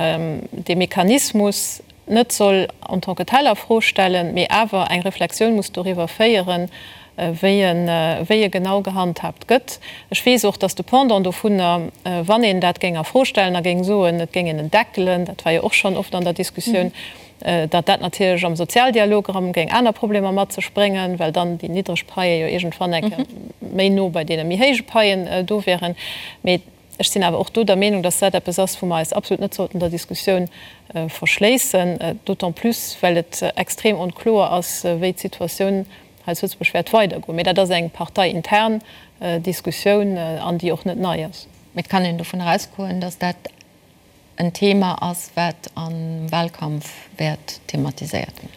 dee Mechanismus net soll en tant que tel a Fro stellen, mee awer eng Reflexioun muss doriwwer féieren, wéi e genau gehandhaabt gëtt. Ech weess och, dass de Pendant dovunner, wann een dat géing a Fro stellen a géing soen, et géing een en deckelen, dat war jo och schonn oft an der Diskussioun, datt dat natierlech am Sozialdialog erëm géing aner Problemer mat sech bréngen, well dann déi niddreg Paie jo iergendwann eng Kéier méi no bei deene méi héije Paien do wären. Mee Ech sinn awer och do der Meenung, dass dat eppes ass, wou mer eis absolut net sollten der Diskussioun verschléissen, d'autant plus well et extrem onkloer ass, wéi d'Situatioun hei zu Lëtzebuerg wäert weidergoen. Mee dat ass eng parteiintern Diskussioun an déi och net nei ass. Mee et kann een dovun erausgoen, dass dat en Thema ass, wat am Wahlkampf wäert thematiséiert ginn.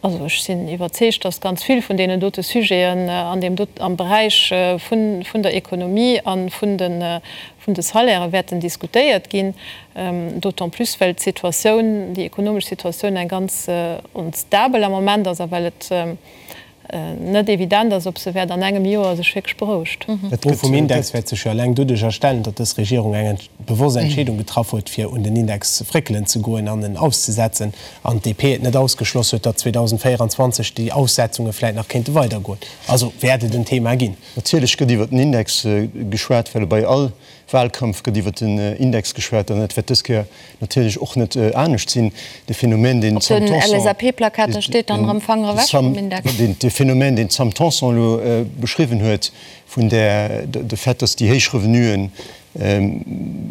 Also ech sinn iwwerzeegt, datt ganz vill vun deenen dote Sujeten an deem dot, am Beräich vun, vun der Ekonomie a vun de, vun de Salairë wäerten diskutéiert ginn, d'autant plus well d'Situatioun, déi ekonomesch Situatioun eng ganz onstabel am Moment ass a well et net evident ass, ob se wäert an engem Joer sech wierklech berouegt. D'Fro vum Index wäert sech jo eleng doduerch erstellen, datt dës Regierung eng bewosst Entscheedung getraff huet, fir un den Index fréckelen ze goen an en auszesetzen, an d'DP et net ausgeschloss huet, datt 2024 déi Aussetzunge vläit nach kéinte weidergoen. Also wäert et en Thema ginn. Natierlech gëtt iwwer den Index geschwat, well bei all Wahlkampf gëtt iwwer den Index geschwat an dat wäert dës Kéier natierlech och net anescht sinn. De Phänomen, deen d'Sam Tanson, deen d'Sam Tanson elo beschriwwen huet, vun där, de Fait, datt déi héich Revenuen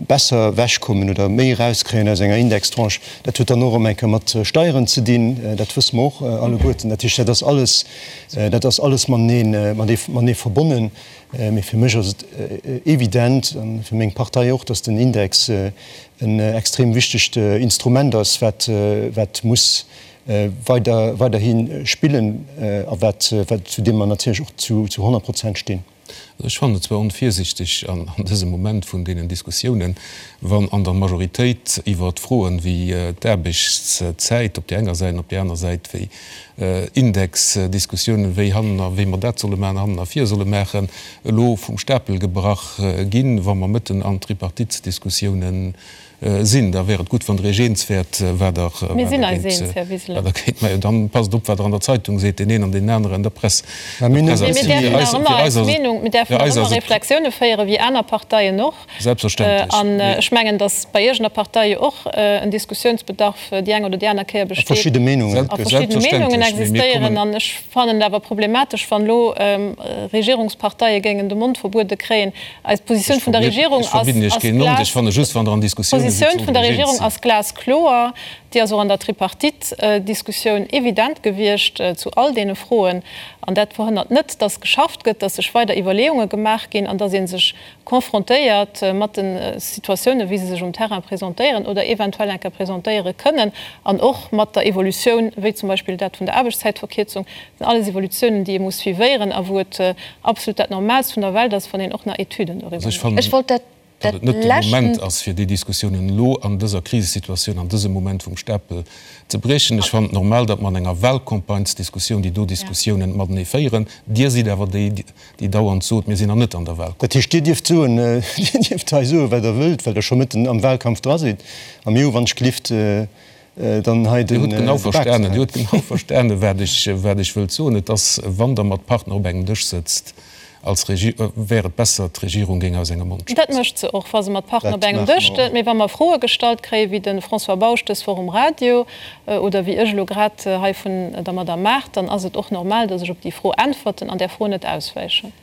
besser ewechkommen oder méi erauskréien aus enger Indextranche, dat huet dann och erëm eng Kéier mat Steieren ze dinn, dat wësse mer och alleguerten. Dat heescht, dat ass alles, dat ass alles matenee, matenee verbonnen. Mee fir mech ass et evident, a fir meng Partei och, datt den Index en extrem wichtegt Instrument ass, wat, wat muss weider, weiderhi spillen a wat, wat, zu deem mer natierlech och zu, zu 100 Prozent stinn. Also ech fannen et zwar onvirsichteg an dësem Moment vun deenen Diskussiounen, wann an der Majoritéit iwwert Froen wéi d'Aarbechtszäit op där enger Säit an op där aner Säit wéi Indexdiskussiounen, wéi hannen a wéi mer dat solle maachen, hannen a vir solle maachen, elo vum Stapel gebrach ginn, wa mer mëtten an Tripartitesdiskussiounen sinn. Da wär et gutt, wann Der Iech eens wäert, wat Der Mir sinn eis eens, Här Wiseler. wat Der géint maachen. Dann passt op, wat Der an der Zeitung seet, deen een an deen aneren, der Press. Mä mir däerfen nach ëmmer eis Meenung, mir däerfen nach ëmmer Reflexioune féieren, wéi aner Parteien och. Selbstverständlech. An ech mengen, datt bei Iech an der Partei jo och en Diskussiounsbedarf déi eng oder déi aner Kéier besteet. A verschidde Meenungen. A verschidde Meenungen existéieren. An ech fannen et awer problematesch, wann elo Regierungsparteie géingen de Mond verbuede kréien. Eis Positioun vun der Regierung ass glas, d'Positioun vun der Regierung ass glaskloer. Déi ass och an der Tripartite-Diskussioun evident gewiescht zu all deene Froen. An dat verhënnert net, datt geschafft gëtt, datt sech weider Iwwerleeunge gemaach ginn an datt ee sech confrontéiert mat de Situatiounen, wéi se sech um Terrain presentéieren oder eventuell eng Kéier presentéiere kënnen, an och mat der Evolutioun, wéi zum Beispill dat vun der Aarbechtszäitverkierzung. Dat sinn alles Evolutiounen, déi ee muss suivéieren a wou et absolut dat Normaalst vun der Welt ass, wann een och nach Etüden doriwwer mécht. Ech wollt dat datt et net de Moment ass, fir déi Diskussiounen elo an dëser Krisesituatioun, an dësem Moment vum Stapel ze briechen. Ech fannen et normal, datt mer an enger Wahlcampagnesdiskussioun déi do Diskussiounen matenee féieren. Dir sidd awer déi, déi dauernd sot, mir sinn nach net an der Wahlcampagne. Dat heescht, Dir dierft soen, Dir dierft hei soen, wat Der wëllt, well Der scho mëtten am Wahlkampf dra sidd. A mir hu wann ech gelift dann hei den Dir hutt genau verstanen, Dir hutt genau verstanen, wat ech, wat ech wëllt soen. Et ass, wann Der mat Partner op engem Dësch sëtzt als Regi-, wär et besser, d'Regierung géing aus engem Mond schwätzen. Dat mécht se och, wa se mat Partner op engem Dësch stëtt. Mee wa mer Froe gestallt kréien, wéi de François Bausch dës Woch um Radio oder wéi ech elo grad hei vun der Madame Mart, dann ass et och normal, dass ech op déi Fro äntwerten an där Fro net auswäichen.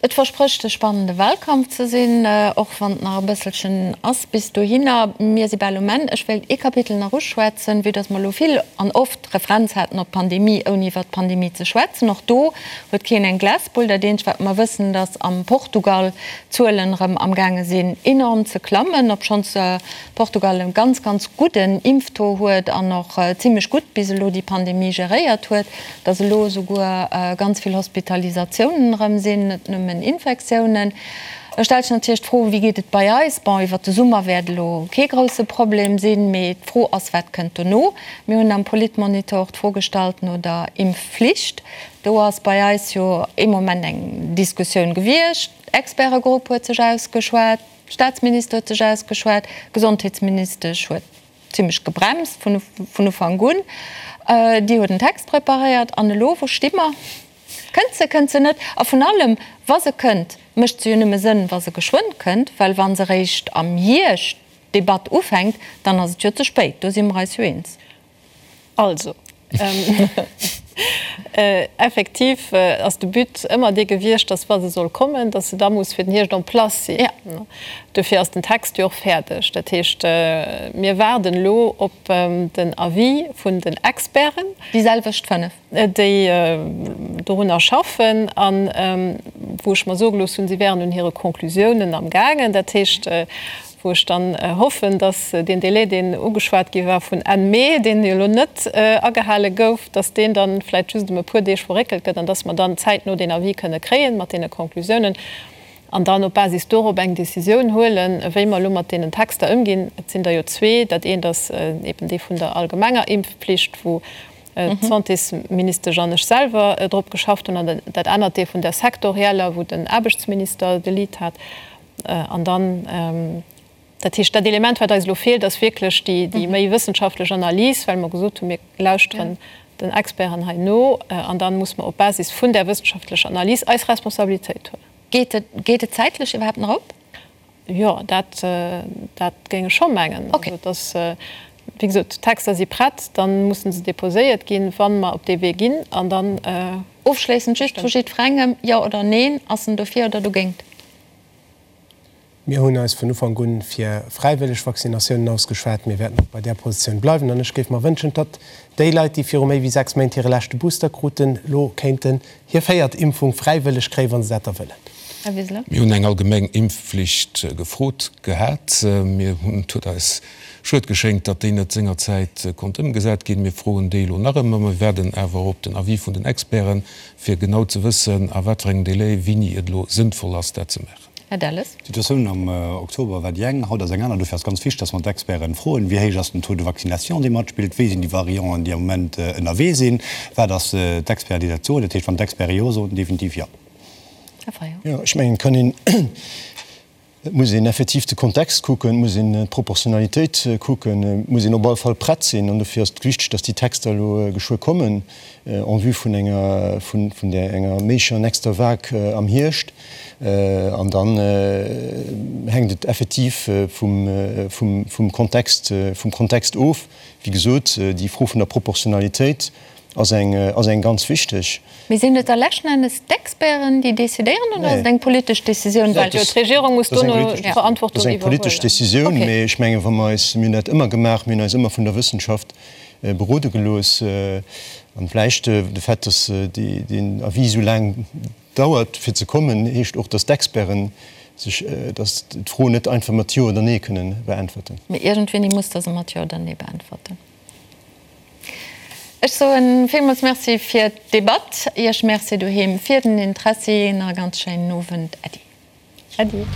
Et versprécht e spannende Wahlkampf ze sinn, och wann et nach e bësselchen ass bis dohinner. Mir si bal um Enn. Ech wéilt ee Kapitel nach uschwätzen, vue dass mer elo vill an oft Referenz haten op d'Pandemie, ouni iwwert d'Pandemie ze schwätzen. Och do huet keen eng Glasbull. Dat eenzegt, wat mer wëssen, dass am Portugal d'Zuelen erëm amgaange sinn enorm ze klammen, obschonns Portugal e ganz, ganz gudden Impftaux huet an och zimlech gutt bis elo déi Pandemie geréiert huet, dass elo esouguer ganz vill Hospitalisatiounen erëm sinn, net nëmmen Infektiounen. Da stellt sech natierlech d'Fro, Wéi geet et bei eis? Bon, iwwert de Summer wäert elo kee grousse Problem sinn, mee d'Fro ass, Wat kënnt dono? Mir hunn am Politmonitor och d'Fro gestallt no der Impfflicht. Do ass bei eis jo ee Moment eng Diskussioun gewiescht. Expertegrupp huet sech ausgeschwat. Staatsminister huet sech ausgeschwat, d'Gesondheetsministesch huet zimlech gebremst vun Ufank un. Déi huet en Text preparéiert. An elo, wou sti mer? Kënnt se, kënnt se net? A vun allem, wa se kënnt, mécht se jo nëmme Sënn, wa se geschwënn kënnt, well wa se eréischt am Hierscht d'Debatt ufänkt, dann ass et jo ze spéit. Do si mer eis jo eens. Also, effektiv ass de But ëmmer dee gewiescht, dass, wa se soll kommen, dass se da muss fir den Hierscht en place sinn. Dofir ass den Text jo och fäerdeg. Dat heescht, mir waarden elo op den Avis vun den Experten. Déi selwecht 5. Déi dorunner schaffen a wou ech mer soe gelooss hunn, si wären un hire Conclusiounen amgaangen. Dat heescht. wou ech dann hoffen, dass deen Délai, deen ugeschwat gi war vun Enn Mee, deen jo elo net agehale gouf, dass deen dann vläicht just ëm e puer Deeg verréckelt gëtt an dass mer dann zäitno deen Avis kënne kréien mat deene Conclusiounen an dann op Basis dorop eng Décisioun huelen, wéi mer elo mat deenen Texter ëmginn. Et sinn der jo zwee. Dat eent ass eben dee vun der allgemenger Impfpflicht, wou d'Santésministesch an ech selwer drop geschafft hunn, an dat anert dee vun der sektorieller, wou den Aarbechtsminister de Lead hat. An dann, dat heescht, dat Element, wat eis elo feelt, ass wierklech déi méi wëssenschaftlech Analys, well mer gesot hunn, mir lauschteren den Experten hei no an da muss mer op Basis vun där wëssenschaftlecher Analys eis Responsabilitéit huelen. Geet et, geet et zäitlech iwwerhaapt nach op? Jo, dat, dat géing ech scho mengen. Also et ass, wéi gesot, d'Texter si prett, da musse se déposéiert ginn, wa mer op dee Wee ginn, an dann. Ofschléissend just vu jiddwerengem, Jo oder Neen, ass en dofir oder dogéint? Mir hunn eis vun Ufank un fir fräiwëlleg Vaccinatiounen ausgeschwat. Mir wäerten och bei där Positioun bleiwen. An ech géif mer wënschen, datt déi Leit, déi viru méi wéi 6 Méint hire leschte Booster kruten, elo kéinten hir véiert Impfung fräiwëlleg kréien, wa se dat da wëllen. Här Wiseler. Mir hunn eng allgemeng Impfflicht gefrot gehat. Mir hunn, et huet eis schued geschéngt, datt déi net sengerzäit konnt ëmgesat ginn. Mir froen déi elo nach ëmmer. Mir waarden awer op den Avis vun den Experten, fir genau ze wëssen, a wat fir engem Délai, wéini et elo sënnvoll ass, dat ze maachen. Här Delles. D'Situatioun am Oktober war déi eng, haut ass eng aner. Dofir ass ganz wichteg, dass mer d'Experten froen, Wéi héich ass den Taux de vaccination, dee matspillt? Wéi sinn déi Varianten, déi am Moment ënnerwee sinn? Wat ass d'Experten, déi dat soen? Dat heescht, wann d'Experte Jo soen, definitiv Jo. Här Fayot. Jo, ech mengen, et kann een, et muss een effektiv de Kontext kucken, et muss een d'Proportionalitéit kucken, et muss een op alle Fall prett sinn. An dofir ass et wichteg, dass déi Texter elo geschwë kommen en vue vun enger, vun där enger méiglecher nächster Vague am Hierscht. An dann hänkt et effektiv vum Kontext, vum Kontext of. Wéi gesot, déi Fro vun der Proportionalitéit ass eng, ass eng ganz wichteg. Mee sinn et da leschten Endes d'Experten, déi decidéieren, oder ass et eng politesch Decisioun? Well jo d'Regierung muss dono d'Verantwortung iwwerhuelen. Dat ass eng politesch Decisioun, mee ech mengen, wa mer eis, mir hunn dat ëmmer gemaach, mir hunn eis ëmmer vun der Wëssenschaft berode gelooss. An vläicht de Fait, dass deen Avis esou laang Dauert fir ze kommen, heescht och, datt d'Experten sech, datt d'Fro net einfach mat Jo oder Nee kënnen beäntwerten. Mee iergendwéini muss Der se mat Jo oder Nee beäntwerten. Ech soe villmools Merci fir d'Debatt, Iech Merci doheem fir den Interessi. Nach e ganz schéinen Owend. Äddi. Äddi.